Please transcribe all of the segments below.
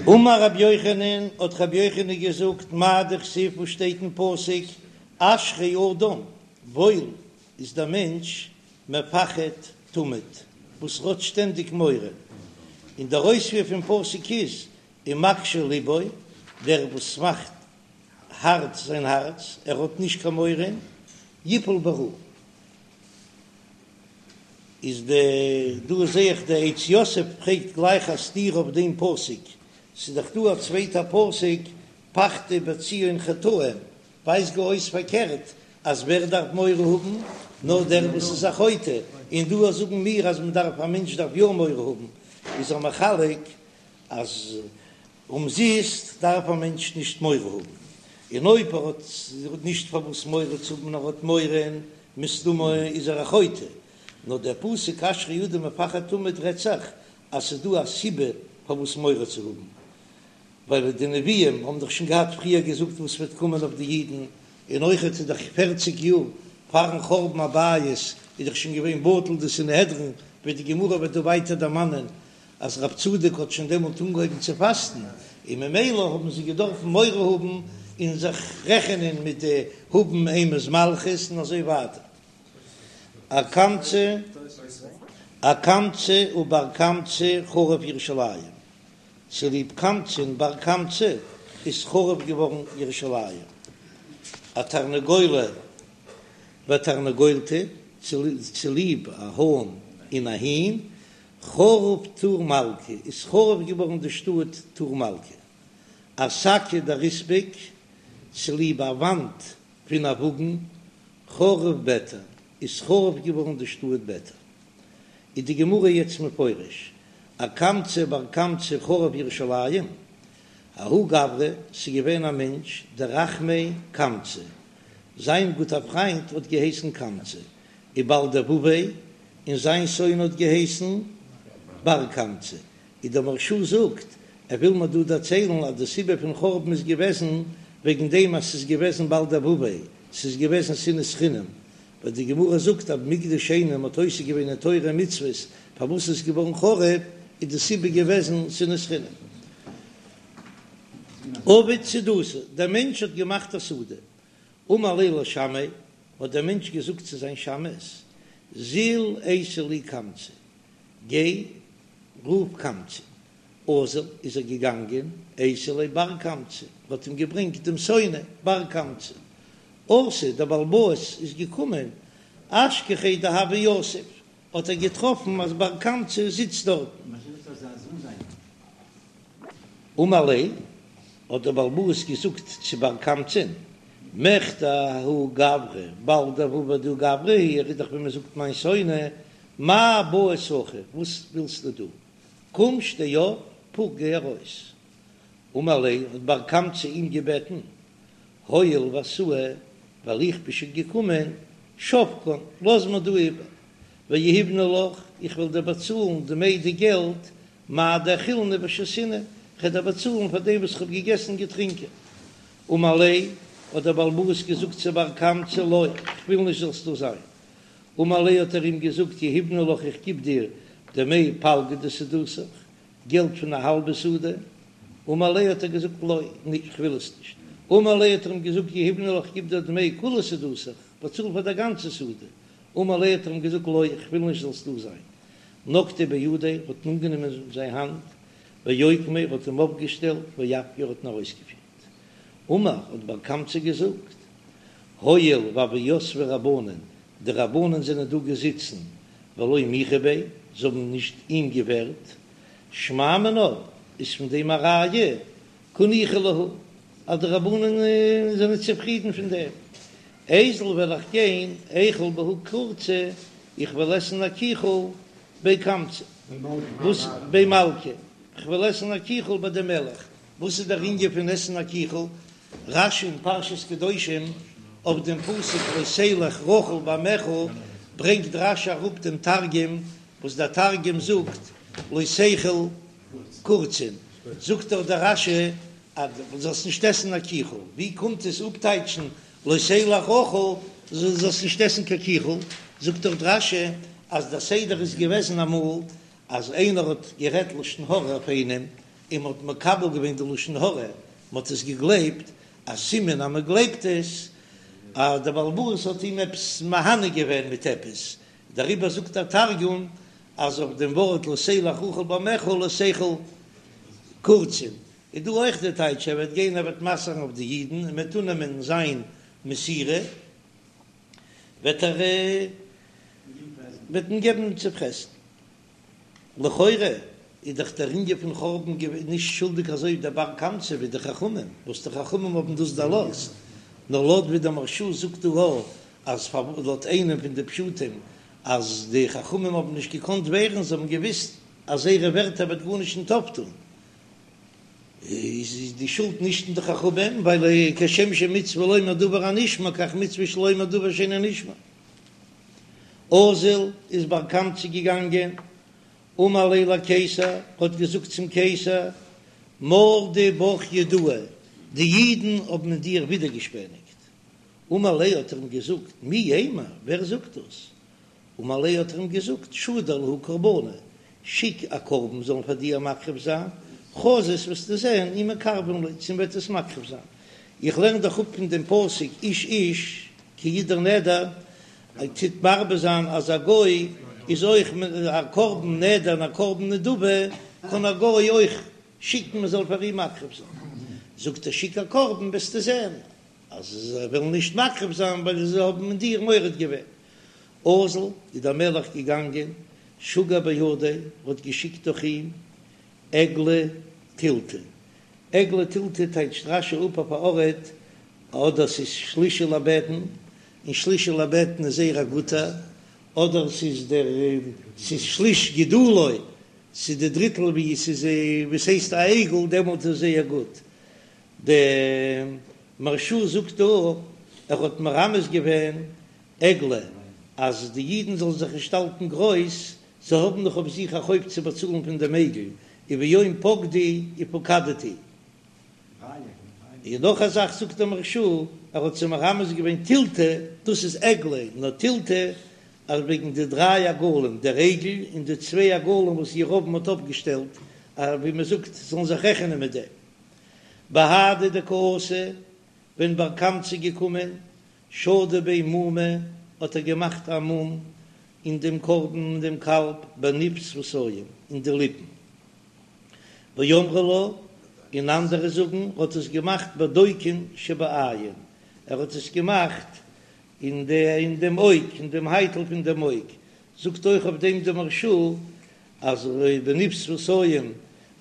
אמר רבי יוחנן, האט רבי יוחנן געזאגט, מאי דכתיב וואס שטייט אין פסוק, אשרי אדם, וואויל איז דער מענטש, מפחד תמיד, וואס האט שטענדיג מורא, און דער אויספיר פון פסוק איז, ומקשה לבו, דער וואס מאכט הארט זיין הארץ, ער האט נישט קיין מורא, יפול ברעה. איז די דא זעה איך די עץ יוסף פרעגט גלייך א סתירה אויף דעם פסוק, ס'איז דאך דא א צווייטע פסוק פחדו בציון חטאים, ווייזט גאר אויס פארקערט אז ווער דארף מורא האבן נאר דער וואס איז א חוטא, און דא זאגן מיר אז מען דארף א מענטש דארף יא מורא האבן, איז ער מחלק אז אומזיסט דארף א מענטש נישט מורא האבן, און אויב ער האט נישט פארוואס מורא צו האבן נאר האט מורא, מסתמא איז ער א חוטא. נאר דער פסוק אשרי אדם מפחד תמיד רעדט זיך אז ס'איז דא א סיבה פארוואס מורא צו האבן, ווייל די נביאים האבן דאך שוין געהאט פריער געזאגט וואס וועט קומען אויף די אידן, און אויכעט איז דאך פערציג יאר פארן חורבן הבית איז דאך שוין געווען בטל די סנהדרין, ווי די גמרא וועט דא ווייטער דערמאנען אז רב צדוק האט שוין דעמאלט אנגעהויבן צו פאסטן, און ממילא האבן זיי געדארפן מורא האבן און זיך רעכענען מיט די האבן אימת מלכות און אזוי ווייטער. אקמצא אקמצא ובר קמצא חרוב ירושלים, צוליב קמצא און בר קמצא איז חרוב געווארן ירושלים. אתרנגולא ותרנגולתא, צוליב א האן און א הין, חרוב טור מלכא, איז חרוב געווארן די שטאט טור מלכא. אשקא דריספק, צוליב א וואנט פון א וואגן, חרוב ביתר, איז חרוב געווארן די שטאט ביתר. איז די גמרא יעצט מפרש, אקמצא בר קמצא חרוב ירושלים, ההוא גברא, ס'איז געווען א מענטש דרחמיה קמצא, זיין גוטער פריינט האט געהייסן קמצא, ובעל דבביה, און זיין שונא האט געהייסן בר קמצא, איז דער מהרש"א זאגט, ער וויל מיר דא דערציילן אז די סיבה פון חורבן איז געוועזן וועגן דעם אז ס'איז געוועזן בעל דבביה, ס'איז געוועזן שנאת חינם, ווייל די גמרא זאגט אז מקדש שני מ'האט עוסק געווען אין תורה און מצוות, פארוואס איז געווארן חרוב, איז די סיבה געוועזן שנאת חינם. עבד סעודתא, דער מענטש האט געמאכט א סעודה, אמר ליה לשמעיה, האט דער מענטש געזאגט צו זיין שמש, זיל אייתי לי קמצא, גיי רוף קמצא. אזל איז ער געגאנגען, אייתי ליה בר קמצא, האט אים געברענגט דעם שונא בר קמצא. אתא, דער בעל הבית איז געקומען, אשכחיה דהוה יתיב, האט ער געטראפן אז בר קמצא זיצט דארטן. אמר ליה, האט דער בעל הבית געזאגט צו בר קמצא'ן, מכדי ההוא גברא בעל דבבא דהוא גברא הוא, ער איז דאך ווי מען זאגט מיין שונא, מאי בעית הכא, וואס ווילסטו דא? קום שטיי אויף, פוק גיי ארויס. אמר ליה, האט בר קמצא אים געבעטן, הואיל ואתאי, ווייל איך בין שוין געקומען, שבקן, לאז מיר דא איבער, ויהיבנא לך, איך וועל דיר באצאלן דמי די געלט מאי דאכילנא ושתינא, כ'וועל דיר באצאלן פאר דעם וואס כ'האב געגעסן און געטרינקען. אמר ליה, האט דער בעל הבית געזאגט צו בר קמצא, לא, כ'וויל נישט זאלסט דא זיין. אמר ליה האט ער אים געזאגט, יהיבנא לך איך גיב דיר דמי פלגא דסעודתך, געלט פון א האלבע סעודה. אמר ליה האט ער געזאגט, לא, כ'וויל עס נישט. אמר ליה האט ער אים געזאגט, יהיבנא לך כ'גיב דיר דמי כולה סעודתך, באצאל פאר דער גאנצע סעודה. אמר ליה האט ער אים געזאגט, לא, כ'וויל נישט זאלסט דא זיין. נקטיה בידיה, האט אנגענומען זיין האנט, ואוקמיה, האט אים אויפגעשטעלט, ואפקיה, האט אים ארויסגעפירט. אמר, האט בר קמצא געזאגט, הואיל והוו יתבי רבנן, די רבנן זענען דא געזיצן, ולא מיחו ביה, זיי האבן נישט אים געווערט, שמע מינה, איז פון דעם א ראיה, קא ניחא להו, אז די רבנן זענען צופרידן פון דעם. איזיל וועל איך גיין, איכול בהו קורצא, איך וועל עסן א קיכל בי קמצא, וואס בי מלכא, איך וועל עסן א קיכל ביי דעם מלך, וואס איז דער ענין פון עסן א קיכל? רש"י אין פרשת קדושים אויף דעם פסוק לא תלך רכיל בעמיך ברענגט רש"י אראפ דעם תרגום וואס דער תרגום זאגט לא תיכול קורצין, זאגט דאך דער רש"י אז דו זאלסט נישט עסן א קיכל, ווי קומט עס אפטייטשן לא תלך רכיל, זאלסט נישט עסן קיין קיכל, זאגט דאך רש"י אז דער סדר איז געוועזן אמאל אז איינער האט גערעדט לשון הרע אויף איינעם. און מ'האט מקבל געווען די לשון הרע, מ'האט עס געגלייבט, א סימן אז מ'גלייבט עס, אז דער בעל הבית האט אים עפעס מהנה געווען מיט עפעס, דעריבער זאגט דער תרגום אז אויף דעם ווארט לא תלך רכיל בעמך לא תיכול קורצין, איז דא אויך די טייטש ער וועט גיין ער וועט מסר'ן אויף די אידן און מ'וועט אננעמען זיין מסירה, וועט ער וועט מען געבן צו פרעסן. לכאורה איז דאך דער ענין פון חורבן געווען נישט שולדיג אזוי דער בר קמצא ווי די חכמים, וואס די חכמים האבן דאס דערלאזט, נאר לויט ווי דער מהרש"א זאגט דא א אז לויט איינעם פון די פשטים אז די חכמים האבן נישט געקאנט ווערן, זיי האבן געוויסט אז זייערע ווערטער וועט גארנישט נישט אויפטון, איז די שולד נישט אין די חכמים, ווייל כשם שמצוה לומר דבר הנשמע כך מצוה שלא לומר דבר שאינו נשמע. אזל איז בר קמצא געגאנגען, אמר ליה לקיסר, האט געזאגט צום קיסר, מרדו בך יהודאי, די אידן האבן אין דיר ווידערגעשפעניגט. אמר ליה האט ער אים געזאגט, מי יימר, ווער זאגט דאס? אמר ליה האט ער אים געזאגט, שדר להו קרבנא, שיק א קרבן זאלן פאר דיר מקריב זיין, חזית וועסטו זען אי מקרבין ליה צו מ'וועט עס מקריב זיין, איך לערן דאך אפ פון דעם פסוק איש איש כי ידור נדר, טוט מרבה זיין אז א גוי איז אויך א קרבן נדר און א קרבן נדבה קען א גוי אויך שיקן מען זאל פאר אים מקריב זיין, זאגט ער שיק א קרבן וועסטו זען אז זיי וועלן נישט מקריב זיין ווייל זיי האבן אין דיר מורד געווען. אזל איז דער מלך געגאנגען, שגר בהדיה, האט געשיקט דורך אים עגלא תילתא, עגלא תילתא טייטשט רש"י אפ אויף א ארט, אדער ס'איז שלישי לבטן, און שלישי לבטן איז זייער א גוטער, אדער ס'איז דער ס'איז שליש גידולו, ס'איז די דריטל ווי ס'איז ווי ס'הייסט א עגל, דעמאלט איז זייער גוט. די מהרש"א זאגט דא, ער האט מרמז געווען עגלה, אז די אידן זאלן זיך נישט האלטן גרויס, זיי האבן נאך אויף זיך א חוב צו באצאלן פון דעם עגל, וביום פקדי ופקדתי. און נאך א זאך זאגט דער מהרש"א, ער האט זיי מרמז געווען תילתא, דאס איז עגלה, נאר תילתא, אז וועגן די דריי עגלים, דער עגל און די צוויי עגלים וואס ירבעם האט אויפגעשטעלט, ווי מען זאגט, זאלן זיך רעכענען מיט דעם. בהדי דקאתי, ווען בר קמצא איז געקומען, שדי ביה מומא, האט ער געמאכט א מום אין דעם קרבן אין דעם קאלב בניב שפתים, אין די ליפן. ואמרי לה, און אנדערע זאגן, האט עס געמאכט בדוקין שבעין, ער האט עס געמאכט אין די אין דעם אויג, אין דעם הייטל פון דעם אויג, זאגט אויך אויף דעם דער מהרש"א אז בניב שפתים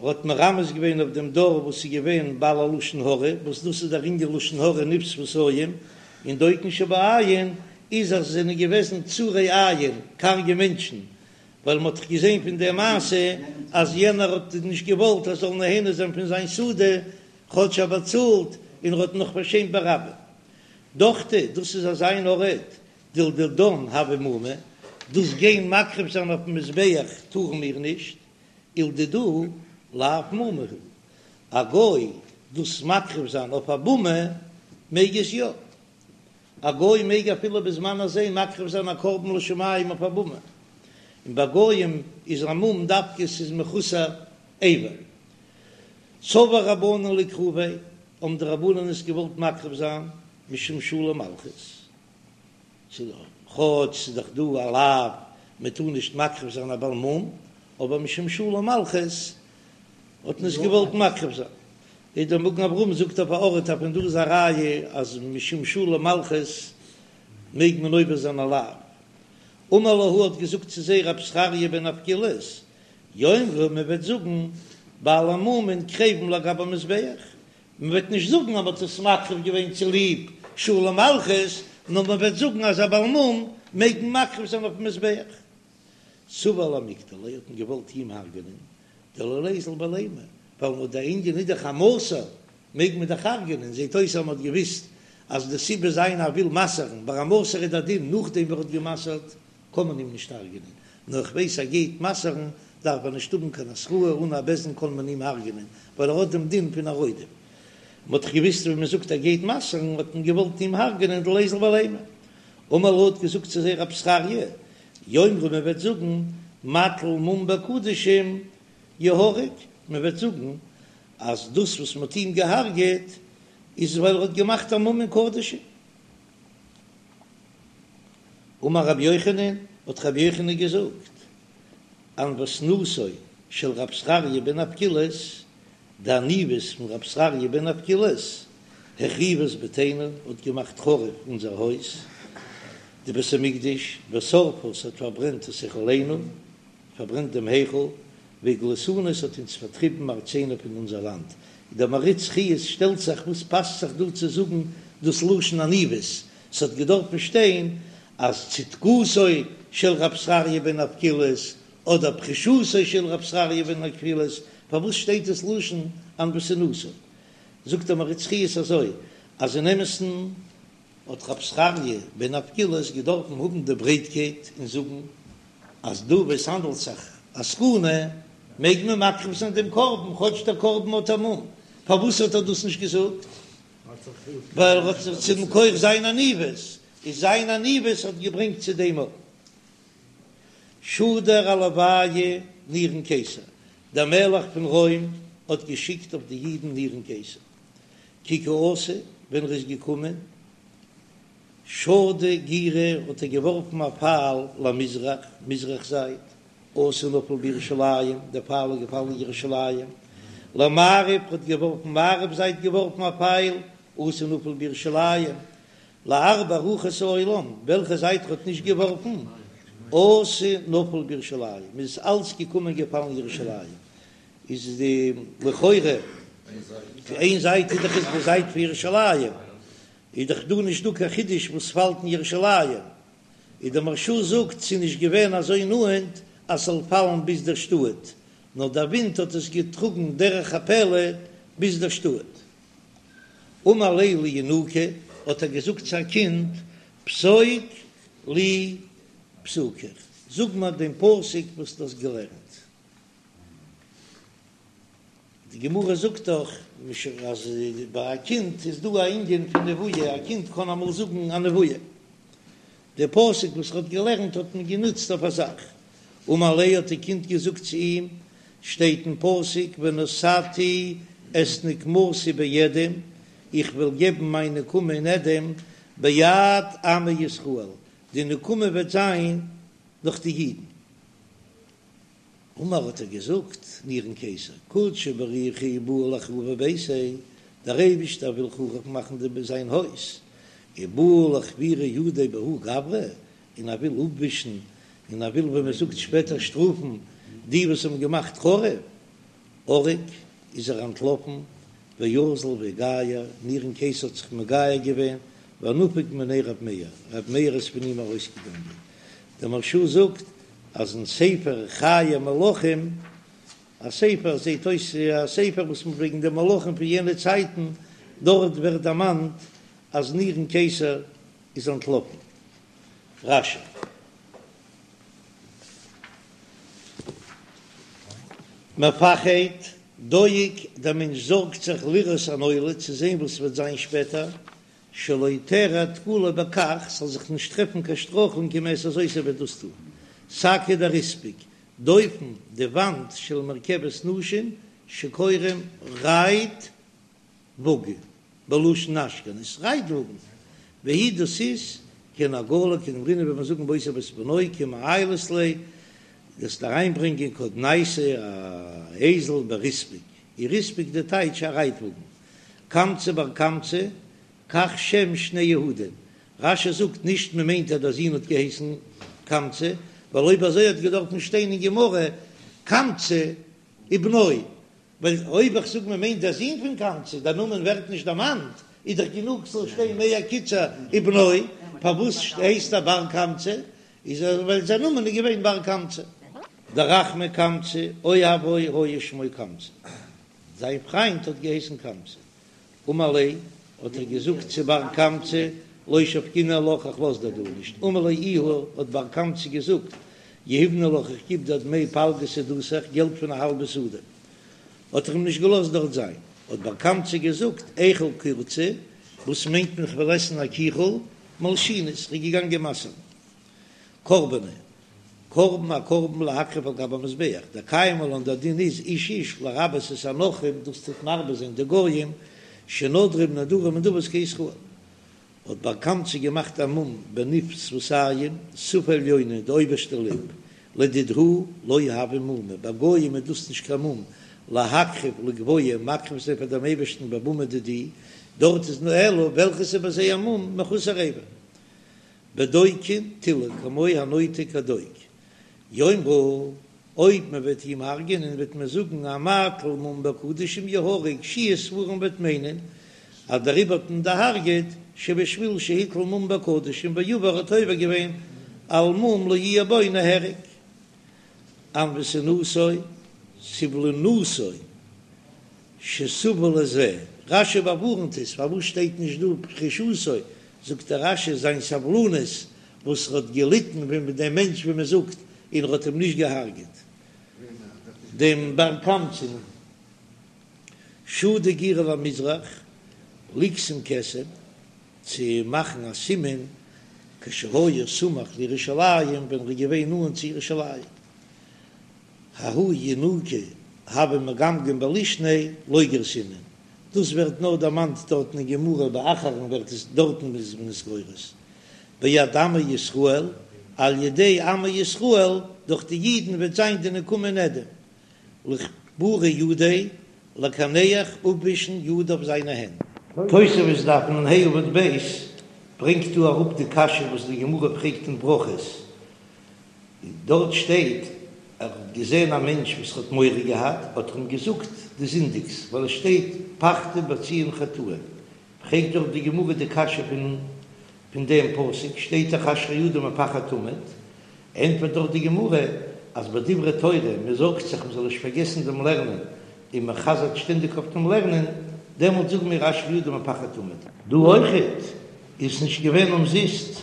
האט מרמז געווען אויף דעם דור וואס איז געווען בעלי לשון הרע, וואס דאס איז דער ענין לשון הרע ניב שפתים, און דוקין שבעין איז אז עס זענען געוועזן צרי עין, קארגע מענטשן, ווייל מען האט דאך געזען פון דער מעשה אז יענער האט נישט געוואלט ער זאל נהנה זיין פון זיין סעודה, כאטש ער באצאלט, און ער האט נאך פארשעמט ברבים. דוכתא, דאס איז אזא אן ארט דלדידן הוי מומא, דאס גיין מקריב זיין אויפן מזבח טארן מיר נישט, ולדידהו לאו מומא הוא, א גוי דאס מקריב זיין אויף א במה מעג עס יא, א גוי מעג אפילו בזמן הזה מקריב זיין א קרבן לשמים אויף א במה, און ביי גויים איז א מום דווקא ס'איז מחוסר אבר. סבור רבנן לאקרוביה, האבן די רבנן עס געוואלט מקריב זיין משום שלום מלכות. כאטש ס'איז דאך דא א לאו מען טאר נישט מקריב זיין א בעל מום, אבער משום שלום מלכות האט מען עס געוואלט מקריב זיין. איז דער מגן אברהם זאגט אויף א ארט אז פון דא איז א ראיה אז משום שלום מלכות מעג מען עובר זיין א לאו. אמר להו האט געזאגט צו זיי רב זכריה בן אבקולס, יאמרו מען וועט זאגן בעלי מומין קריבין לגבי מזבח, מען וועט נישט זאגן אז מען האט עס מקריב געווען צוליב שלום מלכות, נאר מען וועט זאגן אז א בעל מום מעג מען מקריב זיין אויפן מזבח. סבור למיקטליה האט מען געוואלט אים הרג'נען, דלא ליזיל בלימא, ווייל מ'האט דער ענין איז דאך א מסור, מעג מען דאך הרג'נען, זעט אויס אז מען האט געוויסט אז די סיבה זיין ער וויל מסר'ן, ביי א מסור איז דער דין נאכדעם ווי ער האט גע'מסר'ט קען מען אים נישט הרג'נען, נאר איך ווייס ער גייט מסר'ן דארף ער נישט האבן קיין התראה, אן א בית דין קען מען אים הרג'נען, ווייל ער האט דעם דין פון א רודף. מען האט דאך געוויסט ווען מען זאגט ער גייט מסר'ן האט מען געוואלט אים הרג'נען דלא ליזיל בלימא. אמר להו האט געזאגט צו זיי רב זכריה, יאמרו מען וועט זאגן מטיל מום בקדשים יהרג, מען וועט זאגן. אז דאס וואס מ'האט אים געהארגעט איז ווייל ער האט געמאכט א מום אין קדשים. אמר רבי יוחנן, האט רבי יוחנן געזאגט, ענוותנותו של רב זכריה בן אבקולס, די עניוות פון רב זכריה בן אבקולס, החריבה את ביתנו, האט געמאכט חרוב אונזער הויז, די בית המקדש, ושרפה, ס'האט פארברענט את היכלנו, פארברענט דעם היכל, והגליתנו, ס'האט אונז פארטריבן מארצינו פון אונזער לאנד. דער מהרי"ץ חיות שטעלט זיך וואס פאסט זיך דא צו זאגן דאס לשון עניוות, ס'האט געדארפן שטיין אז צדקותו של רב זכריה בן אבקולס אדער פרישותו של רב זכריה בן אבקולס, פארוואס שטייט דאס לשון ענוותנותו? זאגט דער מהרי"ץ חיות אזוי אז אין אמת'ן האט רב זכריה בן אבקולס געדארפן האבן די ברייטקייט און זאגן אז דא וואו עס האנדלט זיך א סכנה מעג מען מקריב זיין דעם קרבן כאטש דער קרבן האט א מום, פארוואס האט ער דאס נישט געזאגט? ווייל ער האט זיך צו מכח זיין עניוות, איז זיין עניוות האט געברענגט צו דעם אויך. שדר עלוייהו נירון קיסר, דער מלך פון רוים האט געשיקט אויף די אידן נירון קיסר, כי קא אתא, ווען ער איז געקומען, שדא גירא האט ער געווארפן א פייל למזרח, מזרח זייט, אתא נפל בירושלים, דער פייל איז געפאלן אין ירושלים, למערב האט געווארפן מערב זייט געווארפן א פייל, אתא נפל בירושלים, לארבע רוחות העולם, וועלכע זייט ער האט נישט געווארפן, אתא נפל בירושלים, איז אלץ געקומען געפאלן ירושלים, איז די לכאורה איין זייט איז דאך איז די זייט פון ירושלים, איז דאך דא נישט דא קיין חידוש וואס פאלט אין ירושלים, איז דער מהרש"א זאגט ס'איז נישט געווען אזוי נאענט אז ס'זאל פאלן ביז דער שטאט, נאר דער ווינט האט עס געטראגן דרך הפלא ביז דער שטאט. אמר ליה לינוקא, האט ער געזאגט צו א קינד, פסוק לי פסוקיך, זאג מיר דעם פסוק וואס דו האסט געלערנט. די גמרא זאגט דאך אז ביי א קינד איז דא א ענין פון נבואה, א קינד קען אמאל זאגן א נבואה. די פסוק וואס ער האט געלערנט האט מען גענוצט אויף א זאך. אמר ליה האט די קינד געזאגט צו אים, שטייט אין פסוק ונתתי את נקמתי באדום, איך וועל געבן מיין נקמה אין אדום, ביד עמי ישראל, די נקמה וועט זיין דורך די אידן. אמר האט ער געזאגט, נירון קיסר, קודשא בריך הוא בעי לחרובי ביתיה, דער אייבישטער וויל חרוב מאכן די זיין הויז, ובעי לחוורי ידיה בההוא גברא, און ער וויל אפווישן, און ער וויל ווי מען זאגט שפעטער שטראפן די וואס האבן געמאכט חרוב, ערק איז ער אנטלאפן, ואזל ואיגייר, נירון קיסר האט זיך מגייר געווען, ונפק מיניה רב מאיר, רב מאיר איז פון אים ארויסגעגאנגען, דער מהרש"א זאגט אז אין ספר חיי מלכים, א ספר זעט אויס א ספר וואס מען וועגן די מלכים פון יענע צייטן, דארט ווערט דערמאנט אז נירון קיסר איז אנטלאפן. רש"י. מפחד, דואג, דער מענטש זארגט זיך לראות הנולד, צו זען וואס וועט זיין שפעטער, שלא תארע תקלה בכך, ס'זאל זיך נישט טרעפן קיין שטרויכלונג אם יעשה זאת ער וועט דאס טון. שקא דריספק, דופן, די וואנט של מרכבת נשים שקוראים רייט וואגן, בלשון אשכנז, רייט וואגן, והיא דאס איז כעין עגלה כדאמרינן ווי מיר זאגן באותו ואת בנו כי מעיילת ליה, דאס אריינברענגען כודנייתא א אייזל בריספק, ריספק די טייטש א רייט וואגן, קמצא בר קמצא, כך שם שני יהודים, רש"י זאגט נישט מען מיינט אז דער זון האט געהייסן קמצא, ווייל אויב אזוי האט געדארפן שטיין אין גמרא קמצא ובנו, ווייל אויב איך זאג מען מיינט דער זון פון קמצא, דער נאמען ווערט נישט דערמאנט, איז דאך גענוג ס'זאל שטיין מער קיצור ובנו, פארוואס הייסט ער בר קמצא? איז ער ווייל זיין נאמען איז געווען בר קמצא. דרחמי קמצא, אוהבו היה שמו קמצא, זיין פריינט האט געהייסן קמצא. אמר ליה, האט ער געזאגט צו בר קמצא, לא שבקינא עלך, איך לאז דיר דא נישט. אמר ליה איהו, האט בר קמצא געזאגט, יהיבנא לך, איך גיב דיר דמי פלגא שדתיך, געלט פון א האלבע שדה. האט ער אים נישט געלאזט דארט זיין. האט בר קמצא געזאגט, איכול קורצא, וואס מיינט מען איך וועל עסן א קיכל, מלשינא, איך בין געגאנגען מסר'ן. קרבנה. קרבן א קרבן להקריב על גבי המזבח, דקיימא לן דער דין איז איש איש לרבות את הנכרים דאס טוט מרבה זיין די גויים שנודרים נדרים ונדבות כישראל. האט בר קמצא געמאכט א מום בניב שפתים, שפה עליונה, די אויבערשטע ליפ, לדידהו לא הוי מומא, ביי גויים איז דאס נישט קיין מום, להקריב לגבוה, מקריב זיין פאר דעם אייבערשטן בבמה דידהו, דארט איז נאר אלא וועלכעס איז ביי זיי א מום מחוסר אבר. בדוקין תילי כמו הנוטה כדוק, יאמרו, אויב מען וועט אים הרג'ענען וועט מען זאגן המטיל מום בקדשים יהרג, שיהא ספרים וועט מיינען אז דעריבער האט מען דערהרג'עט שבשביל שהטיל מום בקדשים ועבר האט עובר געווען על מום לא יהיה בו נהרג. ענוותנותו, סבלנותו, שסבל לזה, רש"י באווארנט עס, פארוואס שטייט נישט דא פרישותו, זאגט דער רש"י זיין סבלנות וואס ער האט געליטן ווען דעם מענטש ווי מען זאגט און ער האט אים נישט געהארגעט דעם בר קמצא'ן שדי גירא למזרח ליקסם כתם צו מאכן א סימן כשהיה סמוך לירושלים ווען ער איז געווען נאנט צו ירושלים. ההוא ינוקא הוה מגמגם בלישניה לא גרסינן, דאס ווערט נאר דערמאנט דארטן אין גמרא ביי אחרון ווערט עס דארטן איז מען עס גורס ביד עמו ישראל על ידי עמו ישראל דורך די אידן וועט זיין די נקמה אין אדום לכפורי ידיה לקנח אפווישן ידיו זיינע הענט. תוספות דף נ"ה עמוד ב' ברענגט דא אראפ די קשיא וואס די גמרא פרעגט אין ברכות, דארט שטייט ער האט געזען א מענטש וואס האט מורא געהאט, האט ער אים געזאגט דו זינדיגסט, ווייל עס שטייט פחדו בציון חטאים, פרעגט דארט די גמרא די קשיא פון פון דעם פסוק, שטייט דאך אשרי אדם מפחד תמיד, ענטפערט דארט די גמרא אז ביי דברי תורה מען זארגט זיך מען זאל נישט פארגעסן דעם לערנען, און מען חזר'ט שטענדיג אויף דעם לערנען, דעמאלט זאגן מיר אשרי אדם מפחד תמיד. דא אויכעט איז נישט געווען אומזיסט,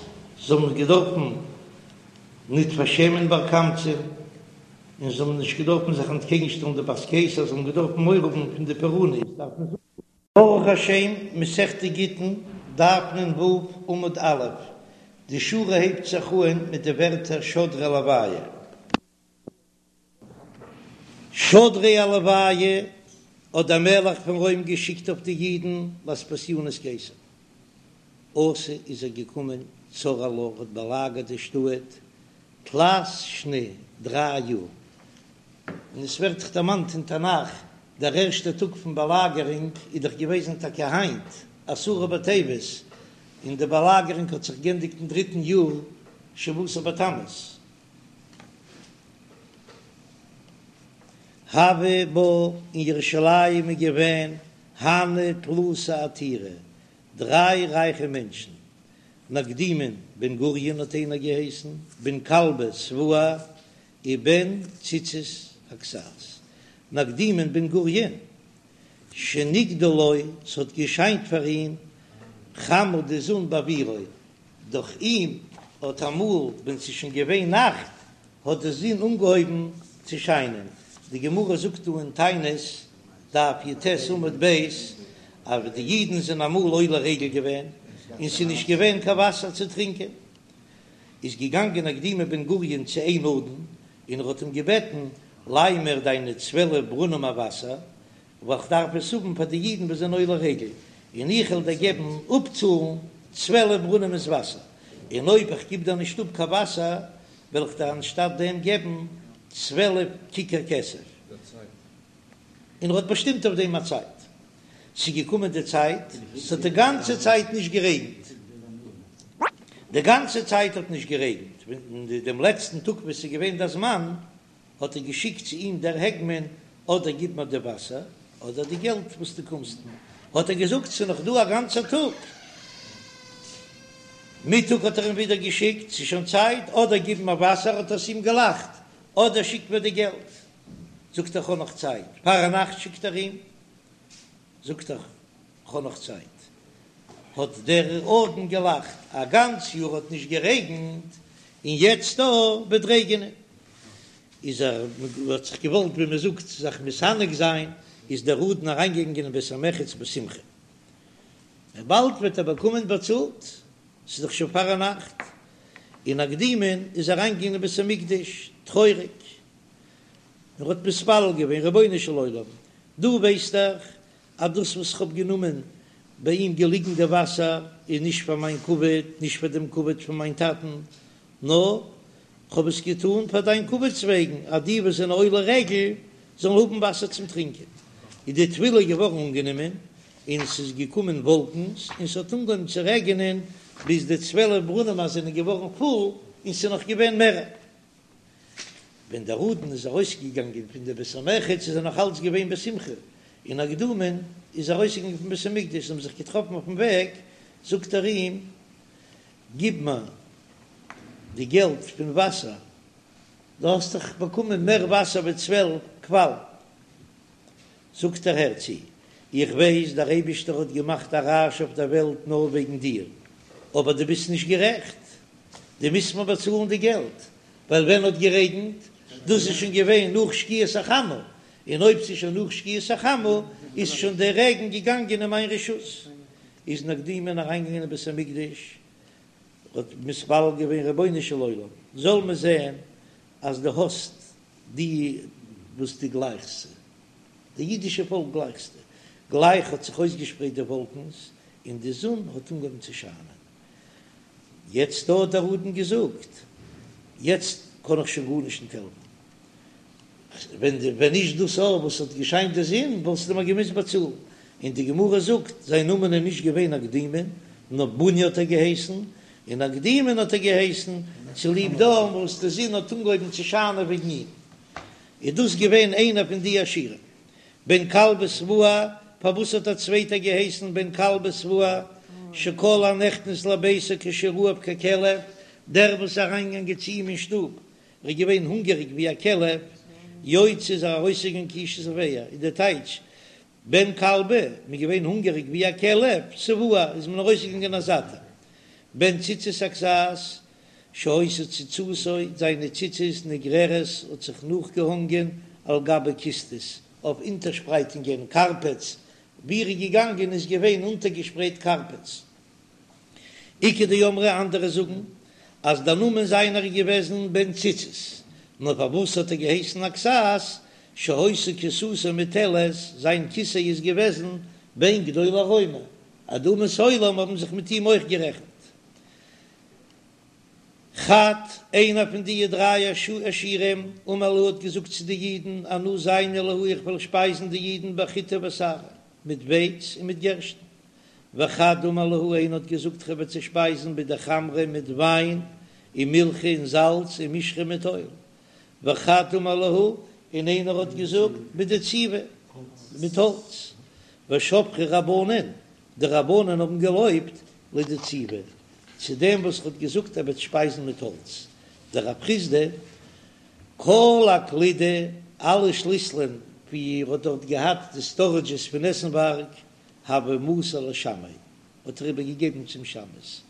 זיי האבן געדארפן ניט פארשעמען בר קמצא, און זיי האבן נישט געדארפן זיך אנטקעגנשטעלן די בת קיסר, זיי האבן געדארפן מורא האבן פון די פורענות, דארף מען זאגן. ברוך השם, מסכת גיטין, דף נ"ו, עמוד א', די שורה הייבט זיך אהן מיט די ווערטער שדריה עילוייהו. שדריה עילוייהו האט דער מלך פון רוים געשיקט אויף די אידן לאספסיינוס קיסר. אתא איז ער געקומען צר עלה האט באלאגערט די שטאט תלת שני דריי יאר, און עס ווערט דאך דערמאנט אין תנך דער ערשטער טאג פון באלאגערונג איז דאך געוועזן טאקע היינט עשרה בטבת, און די באלאגערונג האט זיך גענדיגט אין דריטן יאר שבעה עשר בתמוז. הוה בה אין ירושלים איז געווען הנהו תלתא עתירי, דריי רייכע מענטשן, נקדימון בן גוריון האט איינער געהייסן, בן כלבא שבוע, און בן ציצית הכסת. נקדימון בן גוריון, שנקדה לו, ס'האט געשיינט פאר אים, חמה די זון בעבורו, דורך אים האט אמאל ווען ס'איז שוין געווען נאכט האט די זון אנגעהויבן צו שיינען, די גמרא זאגט דא אין תענית דף י"ט עמוד ב' אז די אידן זענען אמאל עולה רגל געווען און ס'איז נישט געווען קיין וואסער צו טרינקען, איז געגאנגען נקדימון בן גוריון צו איין אדון און ער האט אים געבעטן, ליי מיר דיינע צוועלף ברונעם וואסער, ווייל כ'דארף עס האבן פאר די אידן וואס זענען עולה רגל, און איך וועל דיר געבן אפצאלן צוועלף ברונעמעס וואסער, און אויב איך גיב דיר נישט אפ קיין וואסער, וועל איך דיר אנשטאט דעם געבן צוועלף כיכר כסף. און ער האט באשטימט אויף דעם א צייט. ס'איז געקומען די צייט, ס'האט די גאנצע צייט נישט גערעגנט. די גאנצע צייט האט נישט גערעגנט, ווען דעם לעצטן טאג וואס ס'איז געווען דער זמן, האט ער געשיקט צו אים דער הגמון, אדער גיב מיר די וואסער, אדער די געלט וואס דו קומסט מיר. האט ער געזאגט, ס'איז נאך דא א גאנצער טאג. מיטאג האט ער אים ווידער געשיקט, ס'איז שוין צייט, אדער גיב מיר וואסער, האט ער צו אים געלאכט, אדער שיק מיר די געלט. זאגט ער, כ'האב נאך צייט. פארנאכט שיקט ער אים, זאגט ער, כ'האב נאך צייט. האט דער אדון געלאכט, א גאנץ יאר האט נישט גערעגנט, און יעצט דא וועט רעגענען. איז ער האט זיך געוואלט ווי מען זאגט זיך מתענג זיין, איז דער אדון אריינגעגאנגען אין בית המרחץ בשמחה, באלד וועט ער באקומען באצאלט, ס'איז דאך שוין פארנאכט. און נקדימון איז אריינגעגאנגען אין בית המקדש טרויעריג, און האט מתפלל געווען, רבונו של עולם, דו ווייסט דאך אז דאס וואס כ'האב גענומען ביי אים געליגן די וואסער איז נישט פאר מיין כבוד, נישט פאר דעם כבוד פון מיין טאטן, נאר כ'האב עס געטאן פאר דיין כבוד'ס וועגן, אז די וואס זענען עולי רגל זאלן האבן וואסער צום טרינקען. איז די תפילה געווארן אנגענומען, און ס'איז געקומען וואלקנס און ס'האט אנגעהויבן צו רעגענען, ביז די 12 ברונעמער זענען געווארן פול, און ס'איז נאך געווען מער. ווען דער אדון איז ארויסגעגאנגען פון די בית המרחץ איז ער נאך אלץ געווען בשמחה, און נקדימון איז ארויסגעגאנגען פון בית המקדש, זיי האבן זיך געטראפן אויפן וועג, זאגט ער אים, גיב מיר די געלט פון וואסער, דו האסט דאך באקומען מער וואסער ווי 12 קוואלן. זאגט ער, הער צו, איך ווייס דער אייבישטער האט געמאכט א רעש אויף דער וועלט נאר וועגן דיר, אבער דו ביסט נישט גערעכט, דו מוזט מיר באצאלן די געלט, ווייל ווען האט גערעגנט? דאס איז שוין געווען נאך שקיעת החמה, און אויב ס'איז שוין נאך שקיעת החמה איז שוין דער רעגן געגאנגען אין מיין רשות. איז נקדימון אריינגעגאנגען אין בית המקדש, האט מתפלל געווען רבונו של עולם זאל מען זען אז דו האסט די וואס דו גלייכסט זיי, די אידישע פאלק גלייכסטו, גלייך האט זיך אויסגעשפרייט די וואלקנס און די זון האט אנגעהויבן צו שיינען. יעצט האט דער אדון געזאגט, יעצט קען איך שוין גארנישט נישט העלפן, ווען די ווען נישט דאס אור וואס האט געשיינט די זון וואלסטו מיר געמוזט באצאלן. און די גמרא זאגט, זיין נאמען איז נישט געווען נקדימון, נאר בוני האט ער געהייסן, און נקדימון האט ער געהייסן צוליב דעם וואס די זון האט אנגעהויבן צו שיינען וועגן אים. איז דאס געווען איינער פון די עשירים. בן כלבא שבוע, פארוואס האט א צווייטער געהייסן בן כלבא שבוע, שכל הנכנס לביתו כשהוא רעב ככלב, דער וואס איז אריינגעגאנגען צו אים אין שטוב ער איז געווען הונגעריג ווי א כלב, יוצא איז ער ארויסגעגאנגען כאיש שבע, איז דער טייטש, בן כלבא, מ'איז געווען הונגעריג ווי א כלב, שבוע, איז מען ארויסגעגאנגען א זאטער. בן ציצית הכסת, שהיתה ציצתו, זיינע ציצית נגררת האט זיך נאכגעהאנגען על גבי כיסתות, אויף אונטערשפרייטונגען, קארפעטס, ווי ער איז געגאנגען איז געווען אונטערגעשפרייט קארפעטס. איכא דאמרי אנדערע זאגן אז דער נאמען זיינער איז געוועזן בן ציצית, נאר פארוואס האט ער געהייסן הכסת, שהיתה כסתו מוטלת, זיין כיסא איז געוועזן בין גדולי רומי, אז די אומות העולם האבן זיך מיט אים אויך גערעכנט. חד, איינער פון די דריי עשירים, אמר להו האט געזאגט צו די אידן, אנא זיינא להו איך וועל שפייזן די אידן בחיטי ושערי, מיט ווייץ און מיט גערשטן. וחד אמר להו איינער האט געזאגט כ'וועל זיי שפייזן בדחמרא מיט וויין ומילחא און זאלץ ומשחא מיט אויל, וחד אמר להו און איינער האט געזאגט בדציבי מיט האלץ, ושבחו רבנן די רבנן האבן געלויבט לדציבי צו דעם וואס האט געזאגט ער וועט שפייזן מיט האלץ, דרב חסדא כל אקלידי אלע שליסלען ווי ער האט דארט געהאט די סטארעדזשעס פון עסנווארג הוה מסר לשמעיה, האט ער איבער געגעבן צום שמש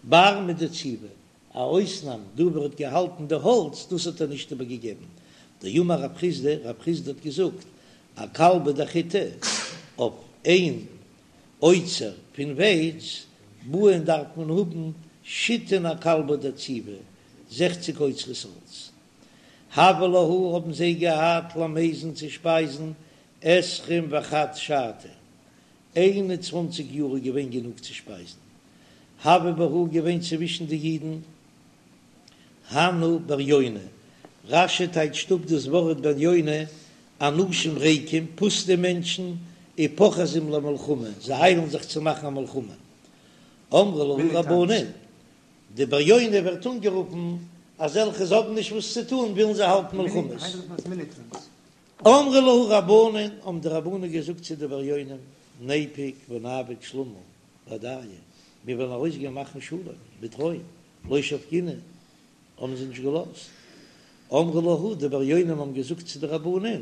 בר מדציבי, א אויסנאם דא וואו ער האט געהאלטן די האלץ, דאס האט ער נישט איבער געגעבן, דאמר רב חסדא, רב חסדא האט געזאגט, אכלבא דחיטי, אויף איין אוצר פון ווייץ, בעין דארף מען האבן שיתין אכלבא דציבי, זעכציג אוצרות האלץ. הוה להו האבן זיי געהאט למיזן צו שפייזן עשרים וחד שתא, 21 יאר איז געווען גענוג צו שפייזן. הוו בהו געווען צווישן די אידן הנהו בריוני, רש"י טייטשט אפ דאס ווארט בריוני, אנשים ריקים, פוסטע מענטשן, ופוחזים למלחמה, זיי איילן זיך צו מאכן א מלחמה. אמרו להו רבנן, די בריוני ווערט אנגערופן אזעלכע זיי האבן נישט וואס צו טון ווילן זיי האלטן מלחמות. אמרו להו רבנן, האבן די רבנן געזאגט צו די בריונים, ניפוק ונעביד שלמא בהדייהו, מיר וועלן ארויסגיין מאכן שלום מיט רוים, לא שבקינהו, האבן זיי נישט געלאזט. אמרו להו, די בריונים האבן געזאגט צו די רבנן,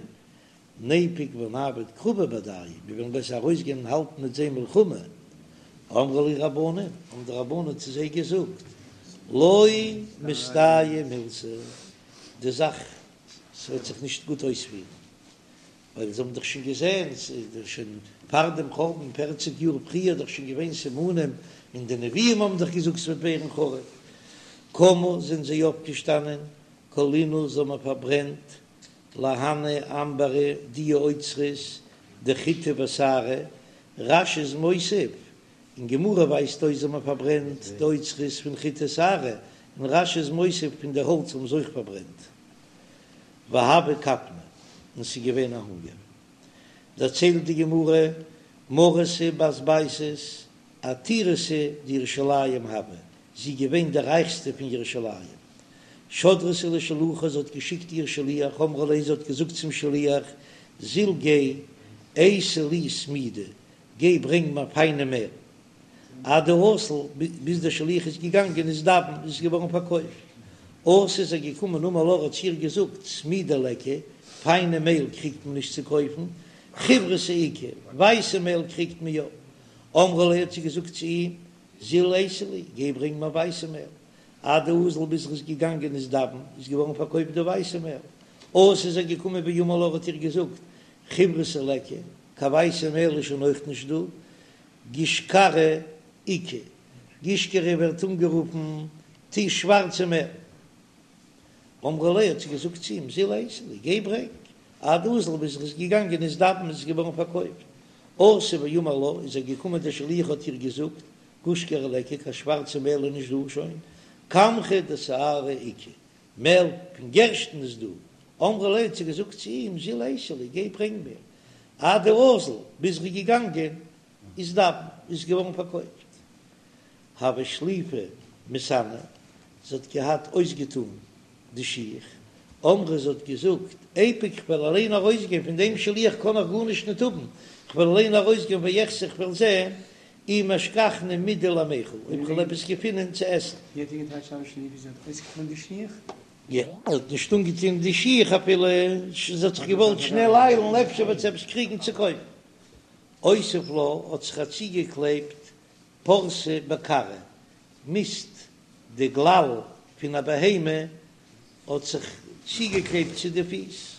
ניפוק ונעביד קרבא בהדייהו, מיר וועלן בעסער ארויסגיין און האלטן מיט זיי מלחמה. אמרו להו רבנן, האבן די רבנן צו זיי געזאגט, לא מסתייעא מילתא, די זאך ס'וועט זיך נישט גוט אויספירן, ווייל זיי האבן דאך שוין געזען, ס'איז דאך שוין פאר דעם חורבן פערציג יאר פריער דאך שוין געווען סימנים, און די נביאים האבן דאך געזאגט ס'וועט ווערן חרוב. קמו זענען זיי אויפגעשטאנען, כל אינהו זיי האבן פארברענט להנהו אמברי די אוצרות דחיטי ושערי, רש"י איז מוסיף, אין גמרא ווייזט אויס זיי האבן פארברענט די אוצרות פון חיטי ושערי, און רש"י איז מוסיף פון די האלץ האבן זיי אויך פארברענט. והוה כפנא, און ס'איז געווען א הונגער. דערציילט די גמרא, מרתא בת בייתוס, עתירתא דירושלים הוה, זי איז געווען די רייכסטע פון ירושלים. שדרתה לשלוחה, זי האט געשיקט איר שליח, אמרה ליה, זי האט געזאגט צום שליח, זיל גיי, אייתי לי סמידא, גיי ברענג מיר פיינע מעל. עד דאזל, ביז דער שליח איז געגאנגען איזדבן, איז עס געווארן פארקויפט. אתא איז ער געקומען אמר לה, האט צו איר געזאגט, סמידא ליכא, פיינע מעל קריגט מען נישט צו קויפן, חיורתא איכא, ווייסע מעל קריגט מען יא. אמרה ליה האט זי געזאגט צו אים, זיל אייתי לי, גיי ברענג מיר ווייסע מעל. עד דאזל ביז ער איז געגאנגען איזדבן, איז געווארן פארקויפט די ווייסע מעל. אתא איז ער געקומען ואמר לה האט איר געזאגט, חיורתא ליכא, קיין ווייסע מעל איז שוין אויך נישט דא, גישכרא איכא, גישכרא ווערט אנגערופן די שווארצע מעל. אמרה ליה האט זי געזאגט צו אים, זיל אייתי לי, גיי ברענג. עד דאזל ביז ער איז געגאנגען איזדבן איז געווארן פארקויפט. אתא ואמר לה, איז ער געקומען דער שליח האט איר געזאגט, גושקרא ליכא, קיין שווארצע מעל איז נישט דא שוין, קמחא דשערי איכא, מעל פון גערשטן איז דא, אמרה ליה האט זי געזאגט צו אים, זיל אייתי לי, גיי ברענג מיר, עד דאזל, ביז ער איז געגאנגען, איזדבן, איז געווארן פארקויפט. הוה שליפא מסאני, זי האט געהאט אויסגעטאן די שיך, אמרה זי האט געזאגט, איפוק כ'וועל אליין ארויסגיין, פון דעם שליח קען איך גארנישט ניט האבן, כ'וועל אליין ארויסגיין ואחזי כ'וועל זען אי משכחנא מידי למיכל, אויב כ'וועל עפעס געפינען צו עסן. ווי האט איר געטייטשט הוה שליפא זי האט אויסגעטאן די שיך? יא, זי האט נישט אנגעטון די שיך אפילו, זי האט זיך געוואלט שנעל איילן אפשר וועט זי עפעס קריגן צו קויפן. אותיב לה האט זיך איר צוגעקלעבט פורתא בכרעא, מיסט די גלל פון א בהמה האט זיך צוגעקלעבט צו די פיס,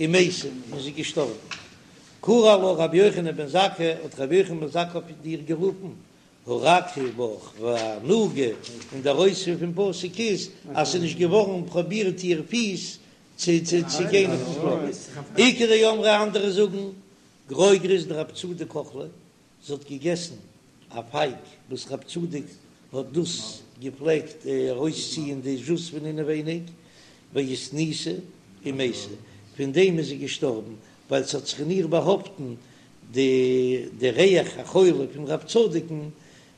ומתה, און זי איז געשטארבן. קרי עלה רבי יוחנן בן זכאי, האט רבי יוחנן בן זכאי אויף איר גערופן, הרכה בך והנוגה, און דער אויספיר פון פסוק איז אז ס'איז נישט געווארן פרובירט איר פיס צו צו גיין אויפן פלאר. איכא דאמרי אנדערע זאגן, גרוגרת דרב צדוק אכלה, זי האט געגעסן א פייג וואס רב צדוק האט דאס געפלעגט ארויסציען די זשוס פון אינעווייניג, ואיתניסה ומתה, פון דעם איז זי געשטארבן, ווייל ס'האט זיך אין איר באהאפטן די די ריח החולי פון רב צדוק'ן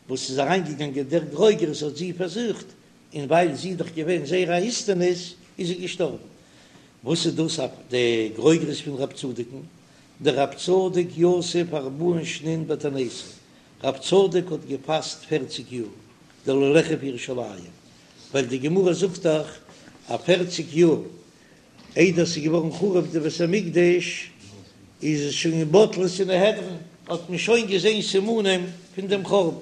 וואס איז אריינגעגאנגען דער גרוגרת האט זי פארזוכט, און ווייל זי איז דאך געווען זייער א איסטניס איז זי געשטארבן. וואס איז דאס די גרוגרת פון רב צדוק'ן? דרב צדוק יתיב ארבעין שנין בתעניתא, רב צדוק האט געפאסט פערציג יאר דלא ליחרב ירושלים, ווייל די גמרא זאגט דאך אז פערציג יאר איידער ס'איז געווארן חרוב די בית המקדש איז עס שוין בטלה סנהדרין, האט מען שוין געזען סימנים פון דעם חורבן.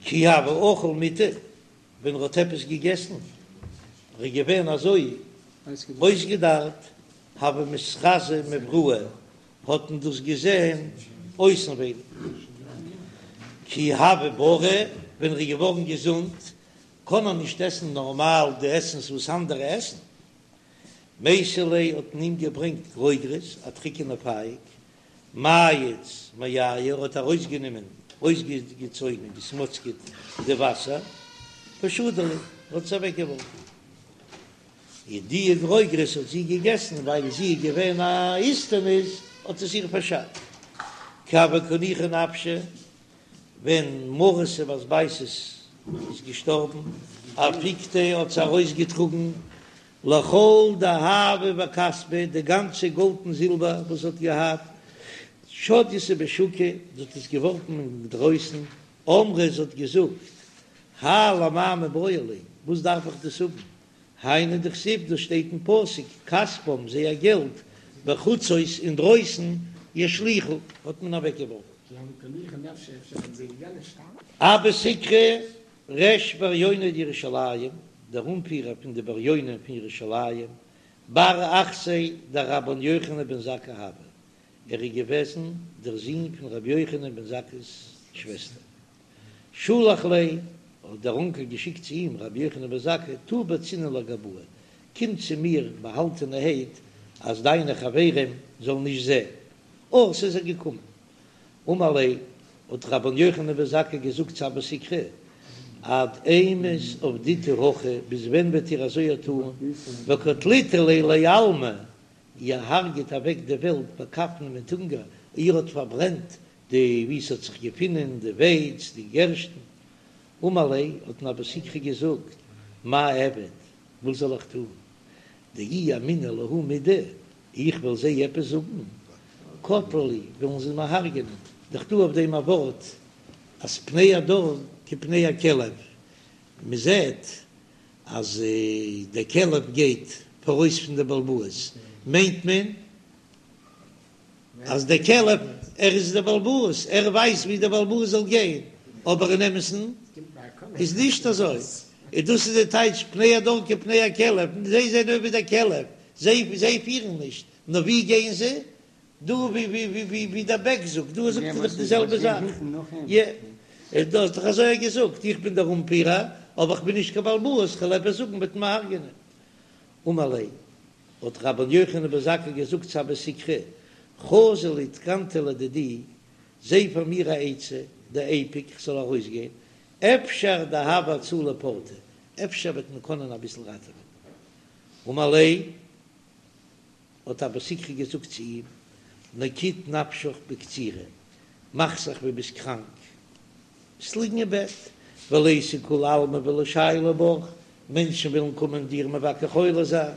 כי הוה אכיל מיטעא, ווען ער האט עפעס געגעסן, ער איז געווען אזוי אויסגעדארט, הוה מתחזי מבראי, האט מען דאס געזען אויסנווייניג. כי הוה בריא, ווען ער איז געווארן געזונט, קען ער נישט עסן נארמאל די עסנס וואס אנדערע עסן. מייתי ליה האט מען אים געברענגט גרוגרות, א טריקענע פייג, מייץ מייהו, ער האט ארויסגענומען, אויסגעצויגן, געסמאצקעט די וואסער, ושדי להו, האט עס אוועקגעווארפן. און די גרוגרות האט זי געגעסן, ווייל זי איז געווען א איסטניס, האט עס איר פארשאדט. כי הוה קא ניחא נפשה, ווען מרתא בת בייתוס איז געשטארבן, אפיקתיה האט זי ארויסגעטראגן לכל דהבא וכספא, די גאנצע גאלד און זילבער וואס זי האט געהאט, שדיתהו בשוקא, זי האט עס געווארפן אינדרויסן, אמרה, זי האט געזאגט, האי למאי מיבעי לי, וואס דארף איך דאס האבן, היינו דכתיב, דאס שטייט אין פסוק, כספם, זייער געלט, בחוצות, אינדרויסן, ישליכו, האט מען אוועקגעווארפן. אבא סיקרא ריש בריוני דירושלים, דער אנפירער פון די בריונים פון ירושלים, בר אחתיה דרבן יוחנן בן זכאי הוה, ער איז געוועזן דער זון פון רבי יוחנן בן זכאי'ס שוועסטער. שלח ליה, האט דער אנקעל געשיקט צו אים רבי יוחנן בן זכאי, תא בצנעא לגבאי, קום צו מיר באהאלטענערהייט אז דיינע חברים זאלן נישט זען. אתא, איז ער געקומען. אמר ליה, האט רבן יוחנן בן זכאי געזאגט צו אבא סיקרא, עד אימת עבדיתו הכי, ביז ווען וועט איר אזוי טאן, וקטליתו ליה לעלמא, איר הרג'ט אוועק די וועלט בכפנא מיט הונגער, איר האט פארברענט די וואו ס'האט זיך געפונען די ווייץ, די גערשטן. אמר ליה, האט אים אבא סיקרא געזאגט, מאי אעביד, וואס זאל איך טון, דאי אמינא להו מידי, איך וועל זיי עפעס זאגן, קטלי לי, וועלן זיי מיר הרג'ענען, דאך דא אויף דעם א ווארט אז פני הדור כפני הכלב, מען זעט אז דער כלב גייט פאראויס פון די בעל הבית, מיינט מען אז דער כלב ער איז דער בעל הבית, ער ווייסט ווי דער בעל הבית זאל גיין, אבער אין אמת'ן איז נישט אזוי, און דאס איז די טייטש פני הדור כפני הכלב, זיי זענען ווי דער כלב, זיי זיי פירן נישט, נאר ווי גייען זיי? דא ווי ווי ווי ווי ווי דער בעק זאגט, דא זאגט ער דאך די זעלבע זאך, יע, דו האסט דאך אזוי געזאגט, איך בין דער אנפירער, אבער איך בין נישט קיין בעל הבית, כ'וועל עפעס זאגן וועט מען הרג'ענען. אמר ליה, האט רבן יוחנן בן זכאי געזאגט צו אבא סיקרא, חזי לי תקנתא לדידי, זע פאר מיר א עצה, דאיפוק כ'זאל ארויסגיין, אפשר דהוי הצלה פורתא, אפשר וועט מען קענען אביסל ראטעווען. אמר ליה, האט אבא סיקרא געזאגט צו אים, נקיט נפשך בקצירה, מאך זיך ווי ביסט קראנק, וועסט ליגן אין בעט, וליתו כולי עלמא ולשיילא בך, מענטשן וועלן קומען דיר מבקר חולה זיין,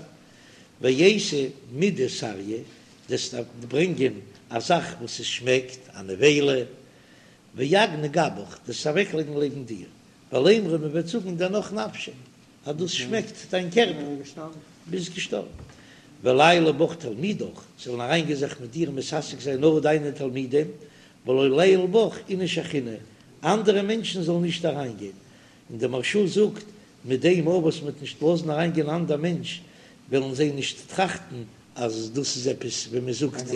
ואייתי מידי סריא, דו'סט ברענגען א זאך וואס עס שמעקט, א נבילה, ואגני גבך, דו'סט אוועקלייגן לעבן דיר, ולימרו מען וועט זאגן דנח נפשיה, אז דאס שמעקט דיין קערפער, ביסט געשטארבן. וליעיילו בך תלמידך, זאלן אריינגיין זיך מיט דיר מתעסק זיין נאר דיינע תלמידים, ולא ליעול בך איניש אחרינא, אנדערע מענטשן זאלן נישט אריינגיין. און דער מהרש"א זאגט, מיט דעם אויך וואס מ'וועט נישט לאזן אריינגיין אנדער מענטש, וועלן זיי נישט טראכטן אז דאס איז עפעס ווי מען זאגט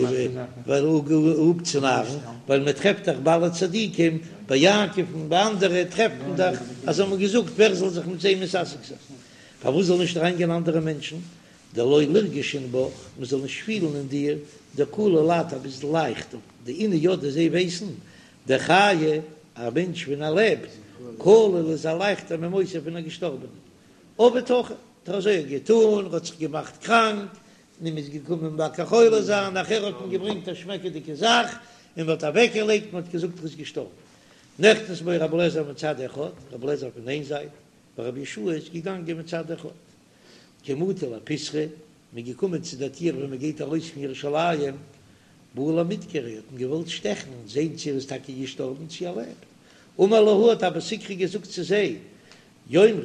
ווייל אפצונארן, ווייל מען טרעפט דאך ביי אלע צדיקים, ביי יעקב און ביי אנדערע טרעפט מען דאך אז זיי האבן געזאגט ווער זאל זיך מיט זיי מתעסק זיין, פארוואס זאל נישט אריינגיין אנדערע מענטשן, דלא לירגשון בך, מען זאל נישט פילן אין דיר דקליל את, אז ביסט לייכט, דאינהו ידעי זיי ווייסן, דחיי, א מענטש ווען ער לעבט, קליל איז ער לייכטער ממיתא פון א געשטארבענעם. עבד הכי, האט ער אזוי געטון, ער האט זיך געמאכט קראנק, און מ'איז געקומען מבקר חולה זיין, נאכער האט מען געברענגט א שמעקעדיגע זאך, און מ'האט אוועקגעלייגט, מ'האט געזאגט ער איז געשטארבן. נכנס בו רבי אליעזר מצד אחד, רבי אליעזר פון איין זייט, ורבי יהושע איז געגאנגען מצד אחד. כי מטו לפיתחא, מ'איז געקומען צו דער טיר ווען מ'גייט ארויס פון ירושלים, בעו למדקריה, האט מען געוואלט שטעכן, זען צו ער איז טאקע געשטארבן צו ער לעבט. אמר להו האט אבא סיקרא געזאגט צו זיי, יאמרו,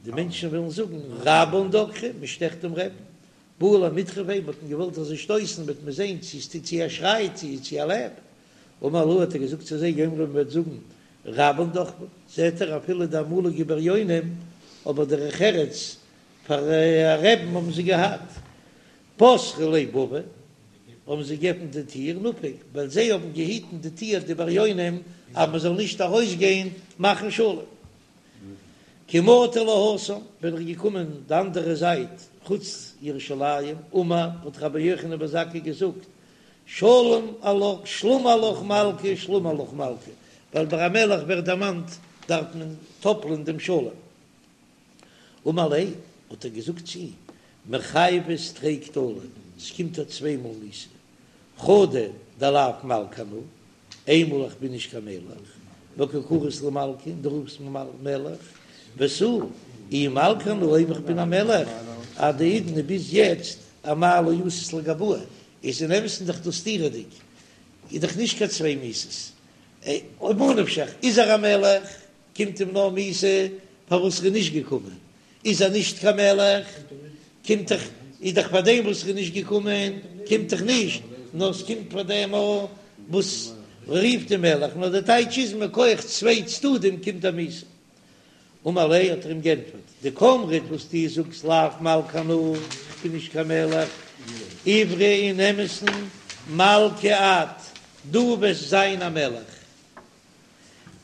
די מענטשן וועלן זאגן, רבן דקרו, מען שטעכט דעם רעבן. בעו למדחפיה, מ'האט אים געוואלט אזוי שטויסן, וועט מען זען צו עס טוט צו ער שרייט, צו צו ער לעבט. אמר להו האט ער געזאגט צו זיי, יאמרו מען וועט זאגן, רבן דחפו, זעט ער אפילו די אמאליגע בריונים, אבער דרך ארץ פאר א רעבן האבן זיי געהאט. פתחו ליה בבא, האבן זיי געעפנט די טיר, נפק, ווייל זיי האבן געהיטן די טיר די בריונים אז מען זאל נישט ארויסגיין מאכן שלום. כי מטו להתם, ווען ער איז געקומען די אנדערע זייט חוץ ירושלים, אמר, האט רבי יוחנן בן זכאי געזאגט, שלום עלך, שלמא עלך מלכא, שלמא עלך מלכא, ווייל ביי א מלך ווערט דערמאנט דארף מען טאפלען דעם שלום. אמר ליה, האט ער געזאגט צו אים, מיחייבת תרי קטלא, עס קומט דיר צוויי מאל מיתה, חדא דלאו מלכא אנא, איינמאל איך בין נישט קיין מלך, וקא קרית לי מלכא, און דו רופסט מיר מלך, ותו, אי מלכא אנא, אויב איך בין א מלך, עד האידנא ביז יעצט, אמאי לא אתית לגבאי, איז אין אמת'ן דאך דאס סתירה'דיג, איז דאך נישט קיין צוויי מיתות, ממה נפשך, איז ער א מלך, קומט אים נאר מיתה פארוואס ער איז נישט געקומען, איז ער נישט קיין מלך, קומט דאך, איז דאך פאר דעם וואס ער איז נישט געקומען, קומט דאך נישט, נאר עס קומט פאר דעם וואס רופט אים מלך, נאר די טייטש איז מכח צוויי צדדים קומט א מיתה. אמר ליה האט ער אים גענטפערט, דקאמרת וואס דו זאגסט לאו מלכא אנא, איך בין נישט קיין מלך, עברה אין אמת'ן מלכא את, דו וועסט זיין א מלך.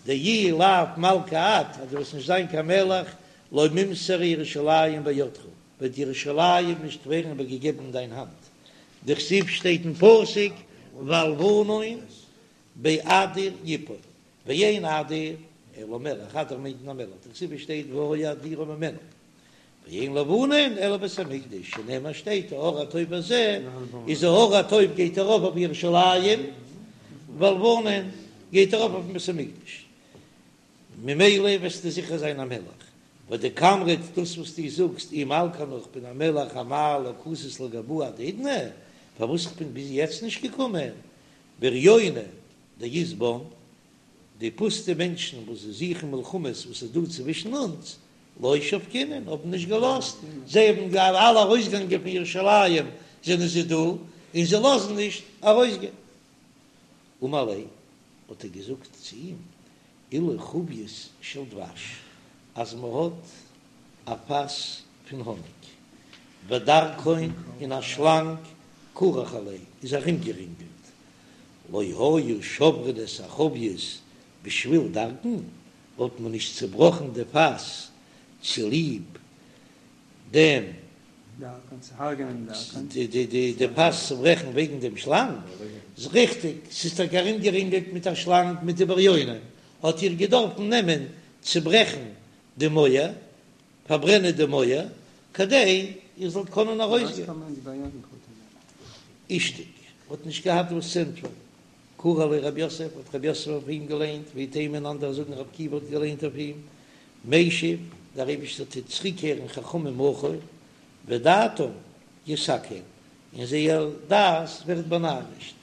דאי לאו מלכא את, אז דו וועסט נישט זיין קיין מלך, לא מימסרא ירושלים בידך, וועט ירושלים נישט ווערן איבערגעגעבן אין דיין האנט, דכתיב שטייט אין פסוק והלבנון באדיר יפול, ואין אדיר אלא מלך, אדיר מיינט מען א מלך, דכתיב שטייט והיה אדירה ממנו, ואין לבנון אלא בית המקדש, שנאמר שטייט ההר הטוב הזה, איז ההר הטוב גייט ארויף אויף ירושלים, והלבנון גייט ארויף אויפן בית המקדש, ממילא וועסטו זיכער זיין א מלך, ודקאמרת דאס וואס דו זאגסט אי מלכא אנא איך בין א מלך אמאי לא קאתית לגבאי עד האידנא, פארוואס איך בין ביז יעצט נישט געקומען, בריוני דאית בן, די פוסטע מענטשן וואס זיי זוכן מלחמות וואס איז דא צווישן אונז, לא שבקינן, האבן נישט געלאזט, זיי האבן אלע ארויסגעגאנגען פון ירושלים זענען זיי דא, און זיי לאזן נישט ארויסגיין. אמר ליה, האט ער געזאגט צו אים, אילו חבית של דבש, אז מען האט א פאס פון האניג, ודרקון און א שלאנג כרוך עליה איז ארומגערינגלט, לא היו שוברין את החבית בשביל דרקון, וואלט מען נישט צעבראכן די פאס צוליב דעם די פאס צוברעכן וועגן דעם שלאנג, איז ריכטיג, ס'איז טאקע ארומגערינגלט מיט א שלאנג מיט די בריונים, האט איר געדארפן נעמען צוברעכן די מויער, פארברענען די מויער, כדי איר זאלט קענען ארויסגיין. אישתיק האט נישט געהאט וואס צו ענטפערן. קרא עליה רב יוסף, האט רב יוסף אויף אים געליינט, ואיתימא און אנדערע זאגן רבי עקיבא האט געליינט אויף אים, משיב, דער אייבערשטער טוט צוריקקערן חכמים אחור, ודעתם יסכל, און זייער דעת ווערט באנארישט.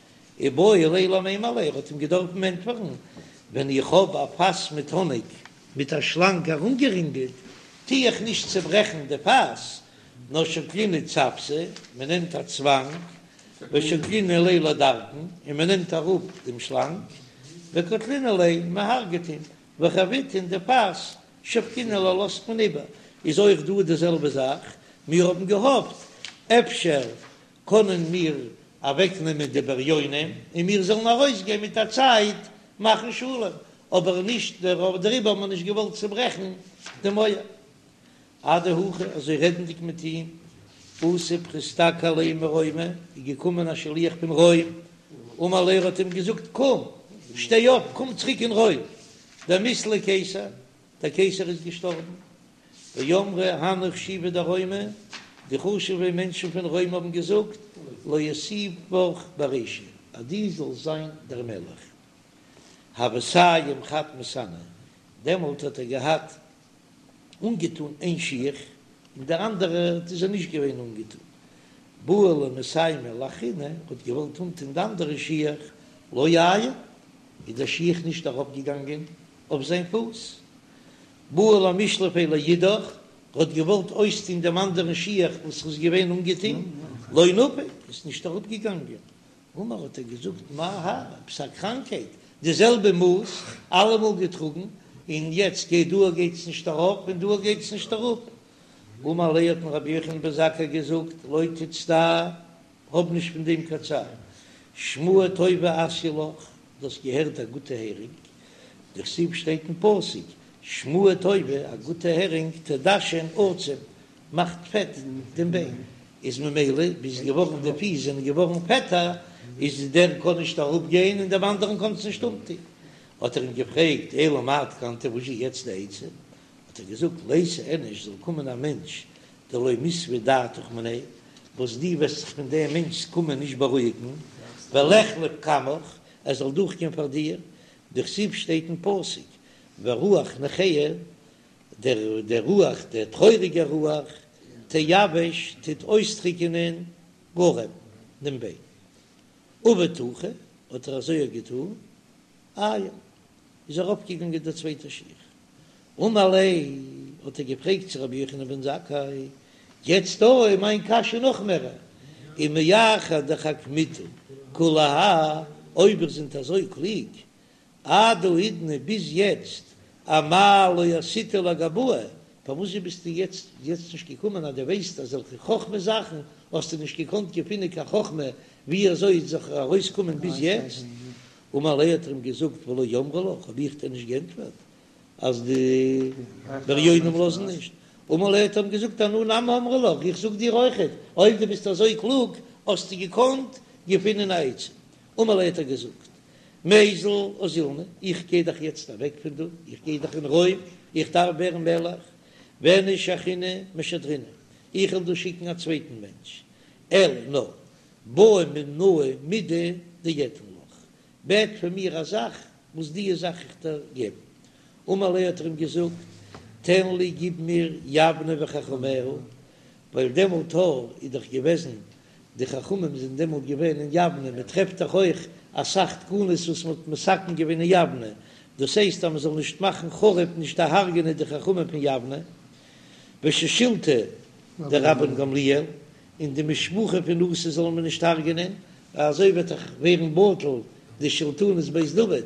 איבעי ליה למימר ליה, ער האט אים געדארפן ענטפערן, ווען איך האב א פאס מיט האניג מיט א שלאנג ארומגערינגלט, טו איך נישט צעברעכן די פאס, נאר שקלינהו צוותא, מען נעמט א צוואנג, ושקלינהו ליה לדרקון, און מען נעמט אראפ דעם שלאנג, וקטלינהו ליה, מען הרג'ט אים, וחביתא און די פאס, שבקינן לה לאזט מען איבער, איז אויך דא די זעלבע זאך, מיר האבן געהאפט אפשר קענען מיר אוועקנעמען די בריונים און מיר זאלן ארויסגיין מיט א צייט מאכן שלום, אבער נישט דעריבער האבן מיר נישט געוואלט צוברעכן די מויער. אדהכי, אזוי רעדנדיג מיט אים, אתא פריסתקא עליה מרומא, איז געקומען א שליח פון רוים, אמר ליה ער האט אים געזאגט, קום, שטיי אויף, קום צוריק אין רוים, דמית ליה קיסר, דער קיסר איז געשטארבן, ואמרי הנהו חשיבי דרומא, די חשוב'ע מענטשן פון רוים האבן געזאגט, לאותיבך ברישא, אז דו זאלסט זיין דער מלך. הוה סיים חד מסאניה, דעמאלט האט ער געהאט אנגעטון איין שיך, און דער אנדערער איז ער נישט געווען אנגעטון. בעי למסיימא לאחרינא, האט געוואלט אנטון די אנדערע שיך, לא עייל, איז דער שיך נישט ארויפגעגאנגען אויף זיין פוס. בעי למשלפיה לאידך, האט געוואלט אויסטון דעם אנדערן שיך וואס ער איז געווען אנגעטון, לא נפיק, איז נישט אראפגעגאנגען. אמר האט ער געזאגט מאי האי, עפעס א קראנקהייט, די זעלבע מאס, אלעמאל געטראגן, און יעצט גייט דא גייט עס נישט ארויף און דא גייט עס נישט אראפ. אמר ליה האט אים רבי יוחנן בן זכאי געזאגט, לא תצטער, האב נישט פון דעם קיין צער, שמועה טובה אתיא לך, דו האסט געהערט א גוטע הערינג, דכתיב שטייט אין פסוק, שמועה טובה, א גוטע הערינג, תדשן עצם, מאכט פעט דעם ביין, איז ממילא ביז געווארן די פיס זענען געווארן פעטער, איז דער קען נישט אראפ גיין און דעם אנדערן קען עס נישט אנטון. האט ער אים געפרעגט, אלא מאי תקנתא, וואס איז יעצט די עצה? האט ער געזאגט, ליתי איניש, זאל קומען א מענטש דלא מיסבא דעתך מיניה, וואס דו וועסט זיך פון דעם מענטש'ס קומען נישט בארואיגן, וליחלף קמך, ער זאל דורכגיין פאר דיר, דכתיב שטייט אין פסוק, ורוח נכאה, דער דער רוח, דער טרויעריגער רוח, תיבש, טוט אויסטריקענען גרם, דעם ביין. עבד הכי, האט ער אזוי געטאן, עייל, איז ארויפגעגאנגען דער צווייטער שיך. אמר ליה, האט ער געפרעגט צו רבי יוחנן בן זכאי, יעצט דא איז מיין קשיא נאך מערער, ומאחר דחכמיתו כולי האי, אויב איר זענט אזוי קלוג, עד האידנא ביז יעצט אמאי לא אתיתו לגבאי, פארוואס ביסטו יעצט יעצט נישט געקומען אז דו ווייסט אזעלכע חכמה זאכן האסטו נישט געקאנט געפינען קיין חכמה ווי אזוי זיך ארויס קומען ביז יעצט? אמר ליה האט ער אים געזאגט ולא אמרי לך, האב איך דיר נישט גענטפערט אז די בריונים לאזן נישט? אמר ליה האט ער אים געזאגט אנא נמי אמרי לך, איך זאג דיר אויכעט, אויב דו ביסט אזוי קלוג האסטו געקאנט געפינען א עצה. אמר ליה האט ער געזאגט, מיזל אזילנא, איך גיי דאך יעצט אוועק פון דא, איך גיי דאך אין רוים, איך דארף ווערן מלך, ואיניש אחרינא משדרנא, איך וועל דא שיקן א צווייטן מענטש, אלא נאר בעי מינאי מידי דאתן לך, בעט פון מיר א זאך וואס דיע זאך איך דיר געבן. אמר ליה האט ער אים געזאגט, תן לי גיב מיר יבנה וחכמיה, ווייל דעמאלט איז דאך געוועזן די חכמים זענען דעמאלט געווען אין יבנה, מען טרעפט דאך אויך אסאך תקנות וואס מען האט מתקן געווען אין יבנה, דאס הייסט אז מען זאל נישט מאכן חרוב נישט דערהרג'ענען די חכמים פון יבנה, ושושילתא דרבן גמליאל, און די משפחה פון נשיא זאל מען נישט הרג'ענען, ווייל אזוי וועט דאך ווערן בטל די שלטונות בית דוד,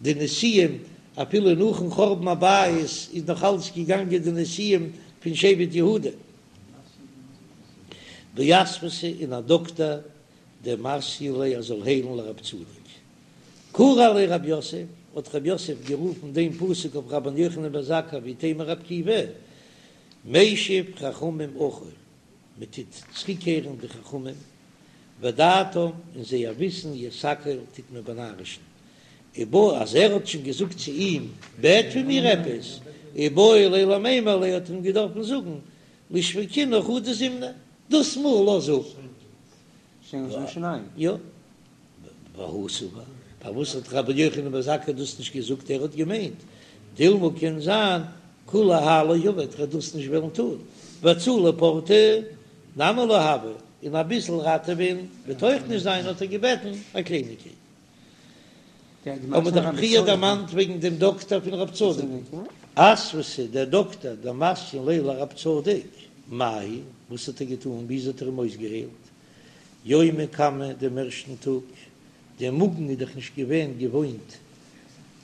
די נשיאים אפילו נאכן חורבן הבית איז נאך אלץ געגאנגען די נשיאים פון שבט יהודה. ואסוותא און א דאקטער דמסיין ליה ער זאל היילן לרב צדוק. קרי עליה רב יוסף, האט רב יוסף גערופן דעם פסוק אויף רבן יוחנן בן זכאי ואיתימא רבי עקיבא, משיב חכמים אחור, מען טוט צוריקקערן די חכמים, ודעתם און זייער וויסן יסכל טוט מען באנארישן, איבעי אז ער האט שוין געזאגט צו אים בעט פון מיר עפעס, איבעי ליה למימר ליה האט ער אים געדארפן זאגן לישבקינהו חדא זימנא, דאס מאל לאז אפ. יא. והוא סבר, פארוואס האט רבי יוחנן בן זכאי דאס נישט געזאגט, ער האט געמיינט, דילמא קען זיין כולי האי לא עביד, ער וועט דאס נישט וועלן טון, והצלה פורתא נמי לא הוי, און אביסל ראטעווען וועט אויך נישט זיין, האט ער געבעטן א קלייניגקייט. האבן מיר דאך פריער דערמאנט וועגן דעם דאקטער פון רב צדוק. אסוותא, דער דאקטער דמסיין ליה לרב צדוק, מאי היא, וואס האט ער געטאן, וויאזוי האט ער אים אויסגעהיילט? יומא קמא דעם ערשטן טאג, דער מאגן איז דאך נישט געווען געוואוינט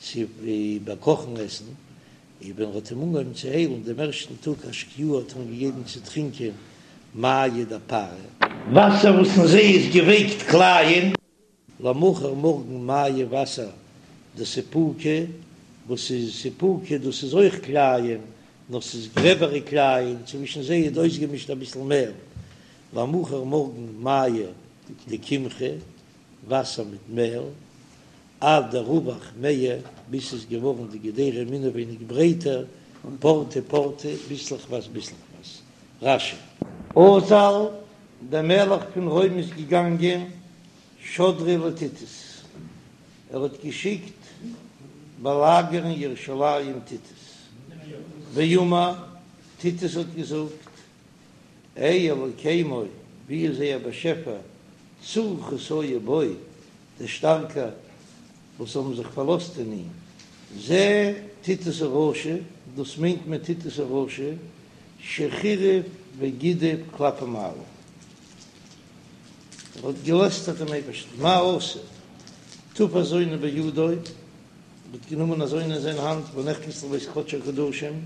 צו איבערקאכן עסן, און ווען ער האט אים אנגעהויבן צו היילן דעם ערשטן טאג אשקיוה האט ער אים געגעבן צו טרינקען מיא דפארי. וואסער וואס אין זיי איז געווייקט קלייען. למחר מארגן מיא וואסער דסיפוקא, וואס איז סיפוקא? דאס איז אויך קלייען, נאר ס'איז גרעבערע קלייען, צווישן זיי איז אויסגעמישט אביסל מעל. למחר מארגן מיא דקמחא, וואסער מיט מעל, עד דרווח מעיה, ביז ס'איז געווארן די געדערים אינעווייניג ברייטער, פורתא פורתא, ביסלעכווייז ביסלעכווייז. רש"י. אזל, דער מלך פון רוים איז געגאנגען שדריה לטיטוס, ער האט געשיקט באלאגערן ירושלים טיטוס, ואמר, טיטוס האט געזאגט, אי אלוקימו, ווי איז זייער באשעפער, צור חסיו בו, דער שטארקער וואס האבן זיך פארלאזט אין אים, זה טיטוס הרשע, דאס מיינט מען טיטוס הרשע, שחירף וגידף כלפי מעלה, ער האט געלעסטערט דעם אייבערשטן, מה עשה, תפס זונה בידו, ער האט גענומען א זונה אין זיין האנט, ונכנס לבית קדשי הקדשים,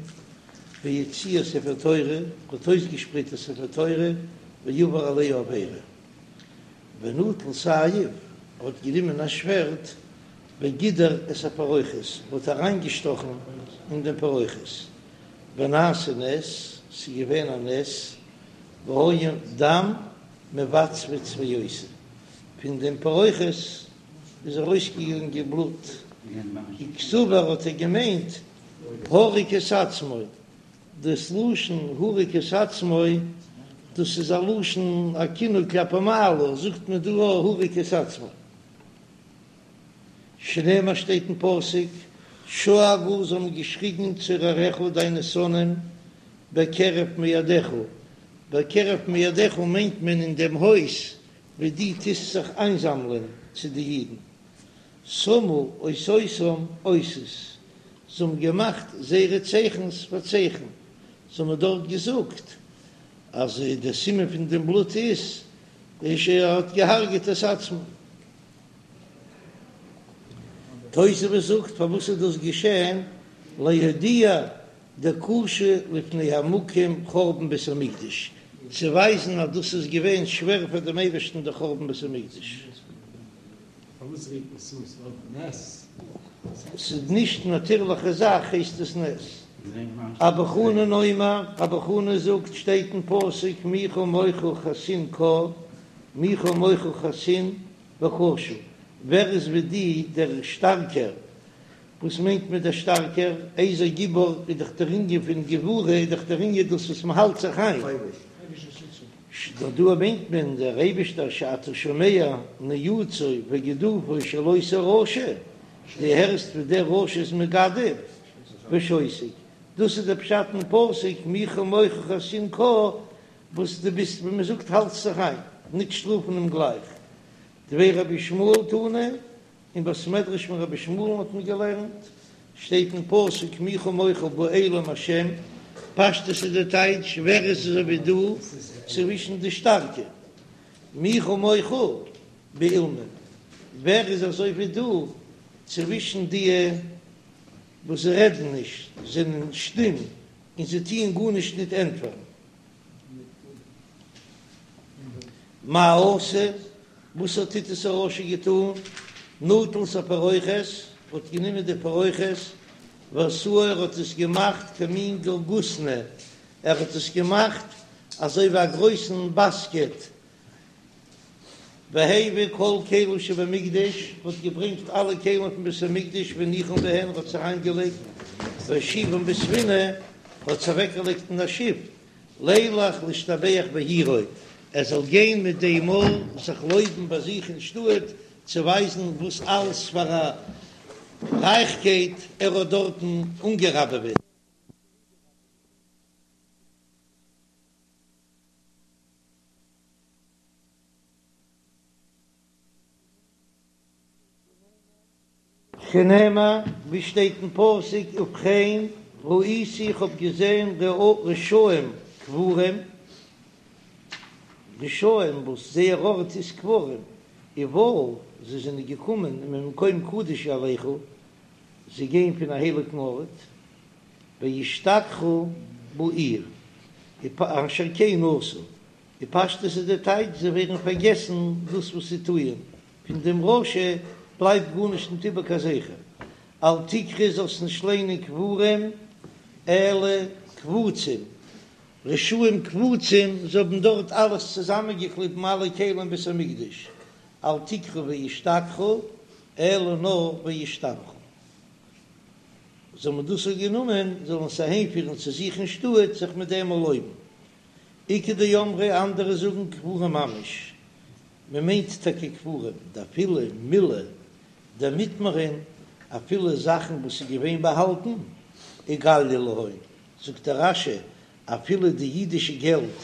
והוציא ספר תורה, ער האט אויסגעשפרייט א ספר תורה, ועבר עליה עבירה. ונטל סייף, ער האט גענומען א שווערד, וגידר את הפרוכת, האט אריינגעשטאכן אין דעם פרוכת, ונעשה נס, ס'איז געווען א נס, והיה דם מבצבץ ויוצא, פון דעם פרוכת איז ארויסגעגאנגען בלוט, וקסבר האט ער געמיינט הרג את עצמו, דאס לשון הרג את עצמו, דאס איז א לשון א כינוי כלפי מעלה, זאגט מען דא הרג את עצמו. שנאמר שטייט אין פסוק, שאגו זיי האבן געשריגן צורריך דיינע שונאים בקרב מועדיך, בקרב מועדיך מיינט מען אין דעם הויז וואו דו טוסט זיך איינזאמלען צו די אידן, שמו אותותם אותות, זיי האבן געמאכט זייערע צייכנס פאר צייכן, זיי האבן דארט געזאגט אז דער סימן פון דעם בלוט איז ער האט געהארגעט את עצמו. תוספות זאגט פארוואס איז דאס געשען, להודיע דקשה לפני המקום חורבן בית המקדש, צו ווייזן אז דאס איז געווען שווער פאר דעם אייבערשטן דער חורבן בית המקדש. ס'איז נישט נאטירליכע זאך הייסט עס נס. אבא חנן אומר, אבא חנן זאגט, שטייט אין פסוק מי כמוך חסין קה, מי כמוך חסין וקשה, ווער איז ווי די דער שטארקער, וואס מיינט מען דער שטארקער, איזהו גיבור איז דאך דער ענין פון גבורה איז דאך דער ענין דאס וואס מען האלט זיך איין. דא מיינט מען דער אייבישטער שאתה שומע ניאוצו וגידופו של אותו רשע, דו הערסט ווי דער רשע איז מגדף ושותק, דאס איז דער פשט אין פסוק מי כמוך חסין קה, וואס דו ביסט ווי מען זאגט האלטסט זיך איין, נישט שטראפן אים גלייך. דבי רבי ישמעאל תנא, אין בית מדרש פון רבי ישמעאל'ן האט מען געלערנט, שטייט אין פסוק מי כמוך באלים השם, פשטות איז די טייטש ווער איז אזוי ווי דו צווישן די שטארקע, מי כמוך באילמים, ווער איז אזוי ווי דו צווישן די וואס רעדן נישט, זענען שטום און זיי טוען גארנישט ניט ענטפערן. מה עשה? וואס האט טיטוס הרשע געטאן? נטל את הפרוכת, האט גענומען די פרוכת, ועשאה ער האט עס געמאכט כמין גרגותני, ער האט עס געמאכט אזוי ווי א גרויסן באסקעט, והביא כל כלים שבמקדש, האט געברענגט אלע כלים פון בית המקדש והניחן בהן, האט עס אריינגעלייגט, והושיבן בספינה, האט עס אוועקגעלייגט אין א שיף, לילך להשתבח בעירו, ער זאל גיין מיט דעם מאל זיך לויבן ביי זיך אין שטאט, צו ווייזן וואס אלס פאר א רייכקייט ער האט דארטן אנגעראבעוועט. שנאמר, ווי שטייט אין פסוק, ובכן, ראיתי איך האב געזען רשעים קבורים, רשעים וואס זייער ארט איז קברים, ובאו, זיי זענען געקומען ממקום קדוש ילכו, זיי גייען פון א הייליגן ארט, וישתכחו בעיר, אשר כן עשו, די פשטות איז די טייטש, זיי ווערן פארגעסן דאס וואס זיי טוען, פון דעם רשע בלייבט גארנישט ניט איבער קיין זכר. אל תקרי זאלסט נישט ליינען קבורים אלא קבוצים, רשעים קבוצים, זיי האבן דארט אלעס צוזאמענגעקליבן אלע כלים בית המקדש, אל תקרי וישתכחו אלא נאר וישתבחו. זאל מען דאס האט גענומען זאלן עס אהיימפירן צו זיך אין שטאט זיך מיט דעם לויבן. איכא דאמרי אנדערע זאגן קבורים ממש, מען מיינט טאקע קבורים, דאפילו מילי דמטמרן, אפילו זאכן וואס איז געווען באהאלטן, איגלייא להון, זאגט דער רש"י, אפילו די אידישע געלט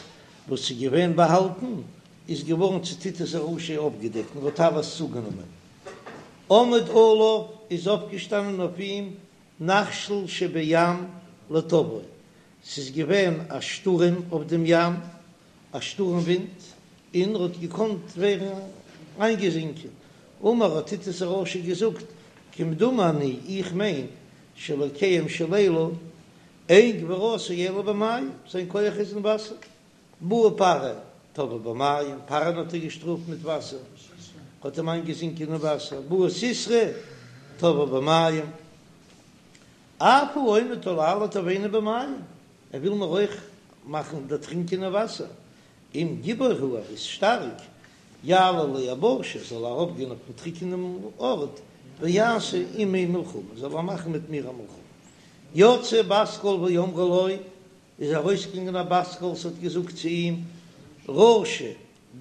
וואס איז געווען באהאלטן, איז געווארן צו טיטוס הרשע אויפגעדעקט און האט אלעס צוגענומען. עמד עליו איז אויפגעשטאנען אויף אים נחשול שבים לטובעו, ס'איז געווען א שטורעם אויף דעם ים, א שטורעם ווינט, און ער האט געקאנט ווערן איינגעזינקען. אמר האט טיטוס הרשע געזאגט, כמדומני, איך מיין, שאלוקיהם של אלו, אין גבורתו אלא במים, זיין כח איז אין וואסער. בא פרעה, טבעו במים, פרעה'ן האט ער געשטראפט מיט וואסער, האט אים איינגעזינקען אין וואסער. בא סיסרא, טבעו במים. אף הוא עומד עלי לטובעני במים, ער וויל מיר אויך מאכן דערטרינקען אין וואסער, אם גיבור הוא, ער איז שטארק, יעלה ליבשה, זאל ער ארויפגיין אויפן טריקענעם ארט, ויעשה עמי מלחמה, זאל ער מאכן מיט מיר א מלחמה. יצאה בת קול ואמרה לו, איז ארויסגעגאנגען א בת קול, ס'האט געזאגט צו אים, רשע,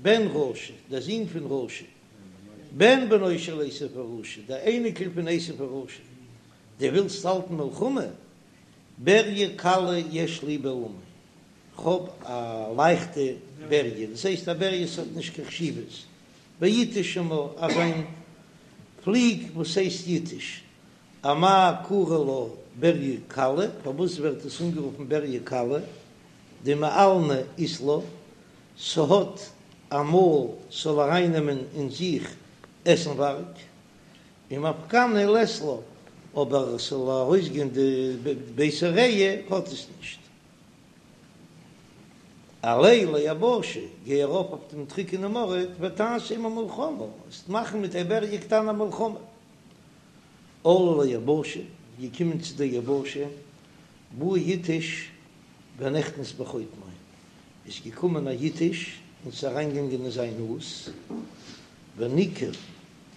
בן רשע, דער זון פון רשע, בן בנו של עשו הרשע, דער אייניקל פון עשו הרשע, דו ווילסט האלטן מלחמה? בריה קלה יש לי בעולמי, כ'האב א לייכטע בריה, דאס הייסט א בריה ס'האט נישט קיין חשיבות, ויתוש שמה, אזא פליג וואס הייסט יתוש, אמאי קרי לה בריה קלה, פארוואס ווערט עס אנגערופן בריה קלה? דמעלנא אית לה, ס'האט א מויל ס'זאל ארייננעמען אין זיך עסנווארג, ומפקנא לית לה, אבער ס'זאל ארויסגיין די בית הריע האט עס נישט. עלה ליבשה, גיי ארויף אויף דעם טרוקענעם ארט, ותעשה עמה מלחמה, וועסט מאכן מיט טבריה קטנה א מלחמה. עלה ליבשה, געקומען צו דער יבשה, בא יתוש ונכנס בחוטמו, איז געקומען א יתוש און ס'איז אריינגעגאנגען אין זיין נאז, וניקב,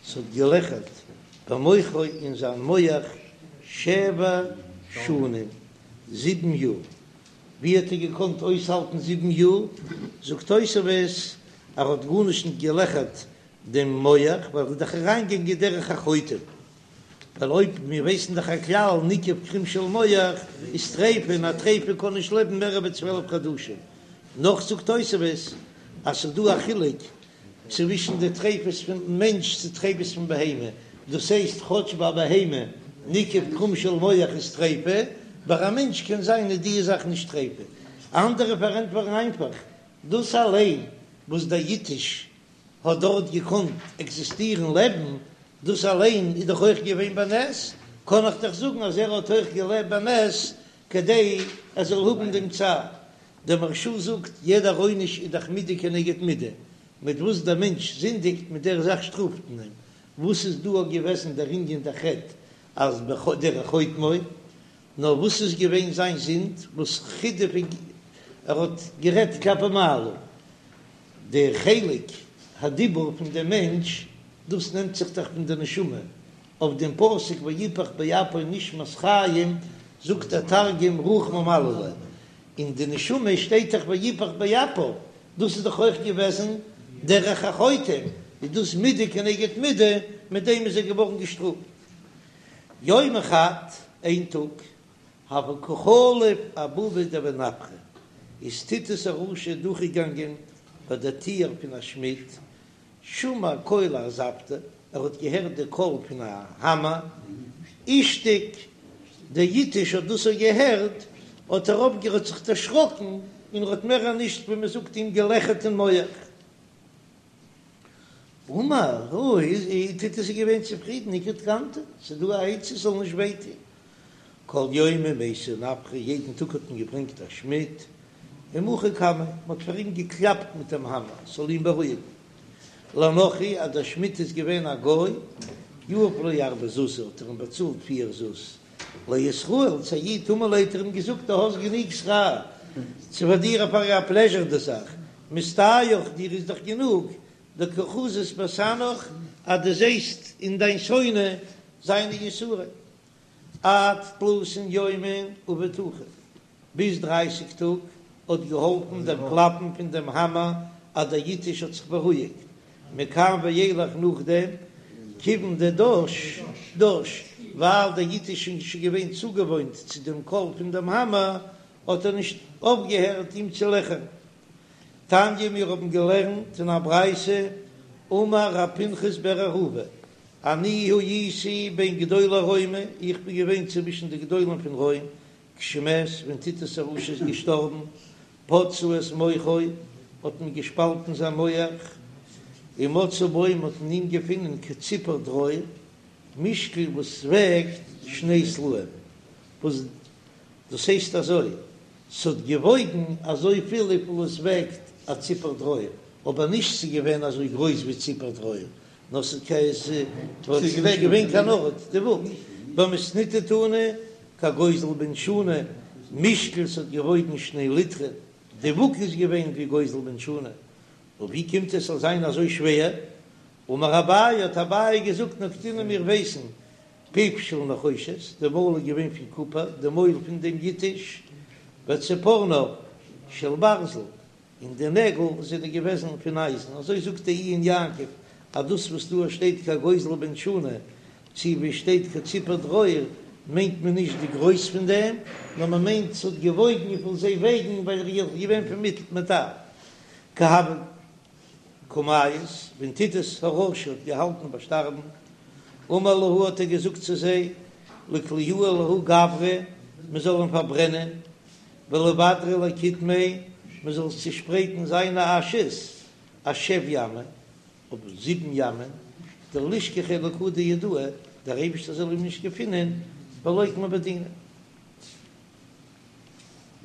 ס'האט געלעכערט במוחו אין זיין מח שבע שנים, זיבן יאר. ווי האט ער געקאנט אויסהאלטן זיבן יאר? זאגט תוספות, ער האט גארנישט נישט געלעכערט דעם מח, ווייל ער איז דאך אריינגעגאנגען דרך החוטם, ווייל אויב מיר ווייסן דאך א כלל ניקב קרום של מח איז טריפה און א טריפה קען נישט לעבן מער ווי 12 חדשים, נאך זאגט תוספות אז ס'איז דא א חילוק צווישן די טריפות פון מענטש צו טריפות פון בהמה, דאס הייסט כאטש ביי בהמה ניקב קרום של מח איז טריפה, ביי א מענטש קען זיין איז די זאך נישט טריפה. אנדערע פארענטפערן איינפאך דאס אליין וואס דער יתוש האט דארט געקאנט עקזיסטירן לעבן, דאס אליין איז דאך אויך געווען בנס, קען איך דאך זאגן אז ער האט אויך געלעבט בנס כדי ער זאל האבן דעם צער. דער מהרש"א זאגט, יעדער עונש איז דאך מידה כנגד מידה, מיט וואס דער מענטש זינדיגט מיט דער זאך שטראפט מען אים, וואס איז דא געוועזן דער ענין דער חטא אז דרך חוטמו, נאר וואס איז געווען זיין זינד וואס חידף ער האט גערעדט כלפי מעלה, די חלק הדיבור פון דעם מענטש, דאס נעמט זיך דאך פון די נשמה, אויף דעם פסוק ויפח באפיו נשמת חיים זאגט דער תרגום רוח ממללא, אין די נשמה שטייט דאך ויפח באפיו, דאס איז דאך אויך געוועזן דרך החוטם, איז דאס מידה כנגד מידה, מיט דעם איז ער געווארן געשטראפט. יומא חד, איין טאג, הוה קא חליף אבבא דבי נפחא, איז טיטוס הרשע דורכגעגאנגען ביי דער טיר פון א שמיד, שמע קלא ארזפתא, ער האט געהערט די קול פון א האמער, אישתיק, דער יתוש האט דאס אויך געהערט, האט ער אויפגעהערט זיך דערשראקן, און ער האט מער נישט ווי מען זאגט אים געלעכערט אין מח. אמר, אוי, טיטוס איז געווען צופרידן, איכא תקנתא, ס'איז דא א עצה ס'זאל נישט וויי טון. כל יומא מייתו נפחא, יעדן טאג האט מען געברענגט א שמיד, ומחו קמיה, מ'האט פאר אים געקלאפט מיט דעם האמער, ס'זאל אים בארואיגן. לנכרי, אז דער שמיד איז געווען א גוי, יהב ליה ארבע זוזי, האט ער אים באצאלט פיר זוז. לישראל, צו א איד, אמר ליה האט ער אים געזאגט, דו האסט גענוג שכר, ס'איז פאר דיר פאר א פלעזשער די זאך, מסתייך, דיר איז דאך גענוג, דקא חזית בסנאך, אז דו זעסט אין דיין שונא זיינע יסורים. עד תלתין יומין עבד הכי, ביז דרייסיג טאג האט געהאלפן דער קלאפן פון דעם האמער אז דער יתוש האט זיך בארואיגט, מכאן ואילך נאכדעם כיוון דדש דש, ווייל דער יתוש איז שוין געווען צוגעוואוינט צו דעם קול פון דעם האמער האט ער נישט אויפגעהערט אים צו לעכערן. תניא מיר האבן געלערנט אין א ברייתא, אמר ר' פנחס בר אהובה, אני הייתי בין גדולי רומי, איך בין געווען צווישן די גדולים פון רוים, כשמת, ווען טיטוס הרשע איז געשטארבן, פצעו את מוחו, האט מען געשפאלטן זיין מח, ומצאו בו, מען האט אין אים געפונען כציפור דרור, משקל וואס וועגט שני סלעים, וואס דאס הייסט אזוי, ס'האט געוואויגן אזויפיל וויפיל עס וועגט א ציפור דרור, אבער נישט ס'איז געווען אזוי גרויס ווי ציפור דרור, נאר ס'איז נישט געווען קיין ארט די וואג. במתניתא תנא כגוזל בן שנה, משקל ס'האט געוואויגן שני ליטרין, די וואג איז געווען ווי גוזל בן שנה, און ווי קומט עס זאל זיין אזוי שווער? אמר אביי, האט אביי געזאגט נקטינן מיר ווייסן פיו של נחושת, די מויל איז געווען פון קופער, די מויל פון דעם יתוש, וציפורניו של ברזל, און די נעגל זענען געוועזן פון אייזן, אזוי זאגט דער עיון יעקב, אז דאס וואס דא שטייט כגוזל בן שנה, צו ווי שטייט כציפור דרור, מיינט מען נישט די גרויס פון דעם, נאר מען מיינט ס'האט געוואויגן וויפיל זיי וועגן, ווייל ער איז געווען פון מעטאל. כי הוה קא מיית, ווען טיטוס הרשע האט געהאלטן ביי שטארבן, אמר להו האט ער געזאגט צו זיי, ליקליוה לההוא גברא, מען זאל אים פארברענען, ולבדריה לקיטמיה, מען זאל צושפרייטן זיינע אשעס, אשב ימי, אויף זיבן ימען, דלישכחיה לקא דיהודאי, דער אייבערשטער זאל אים נישט געפינען, ולוקמיה בדינא.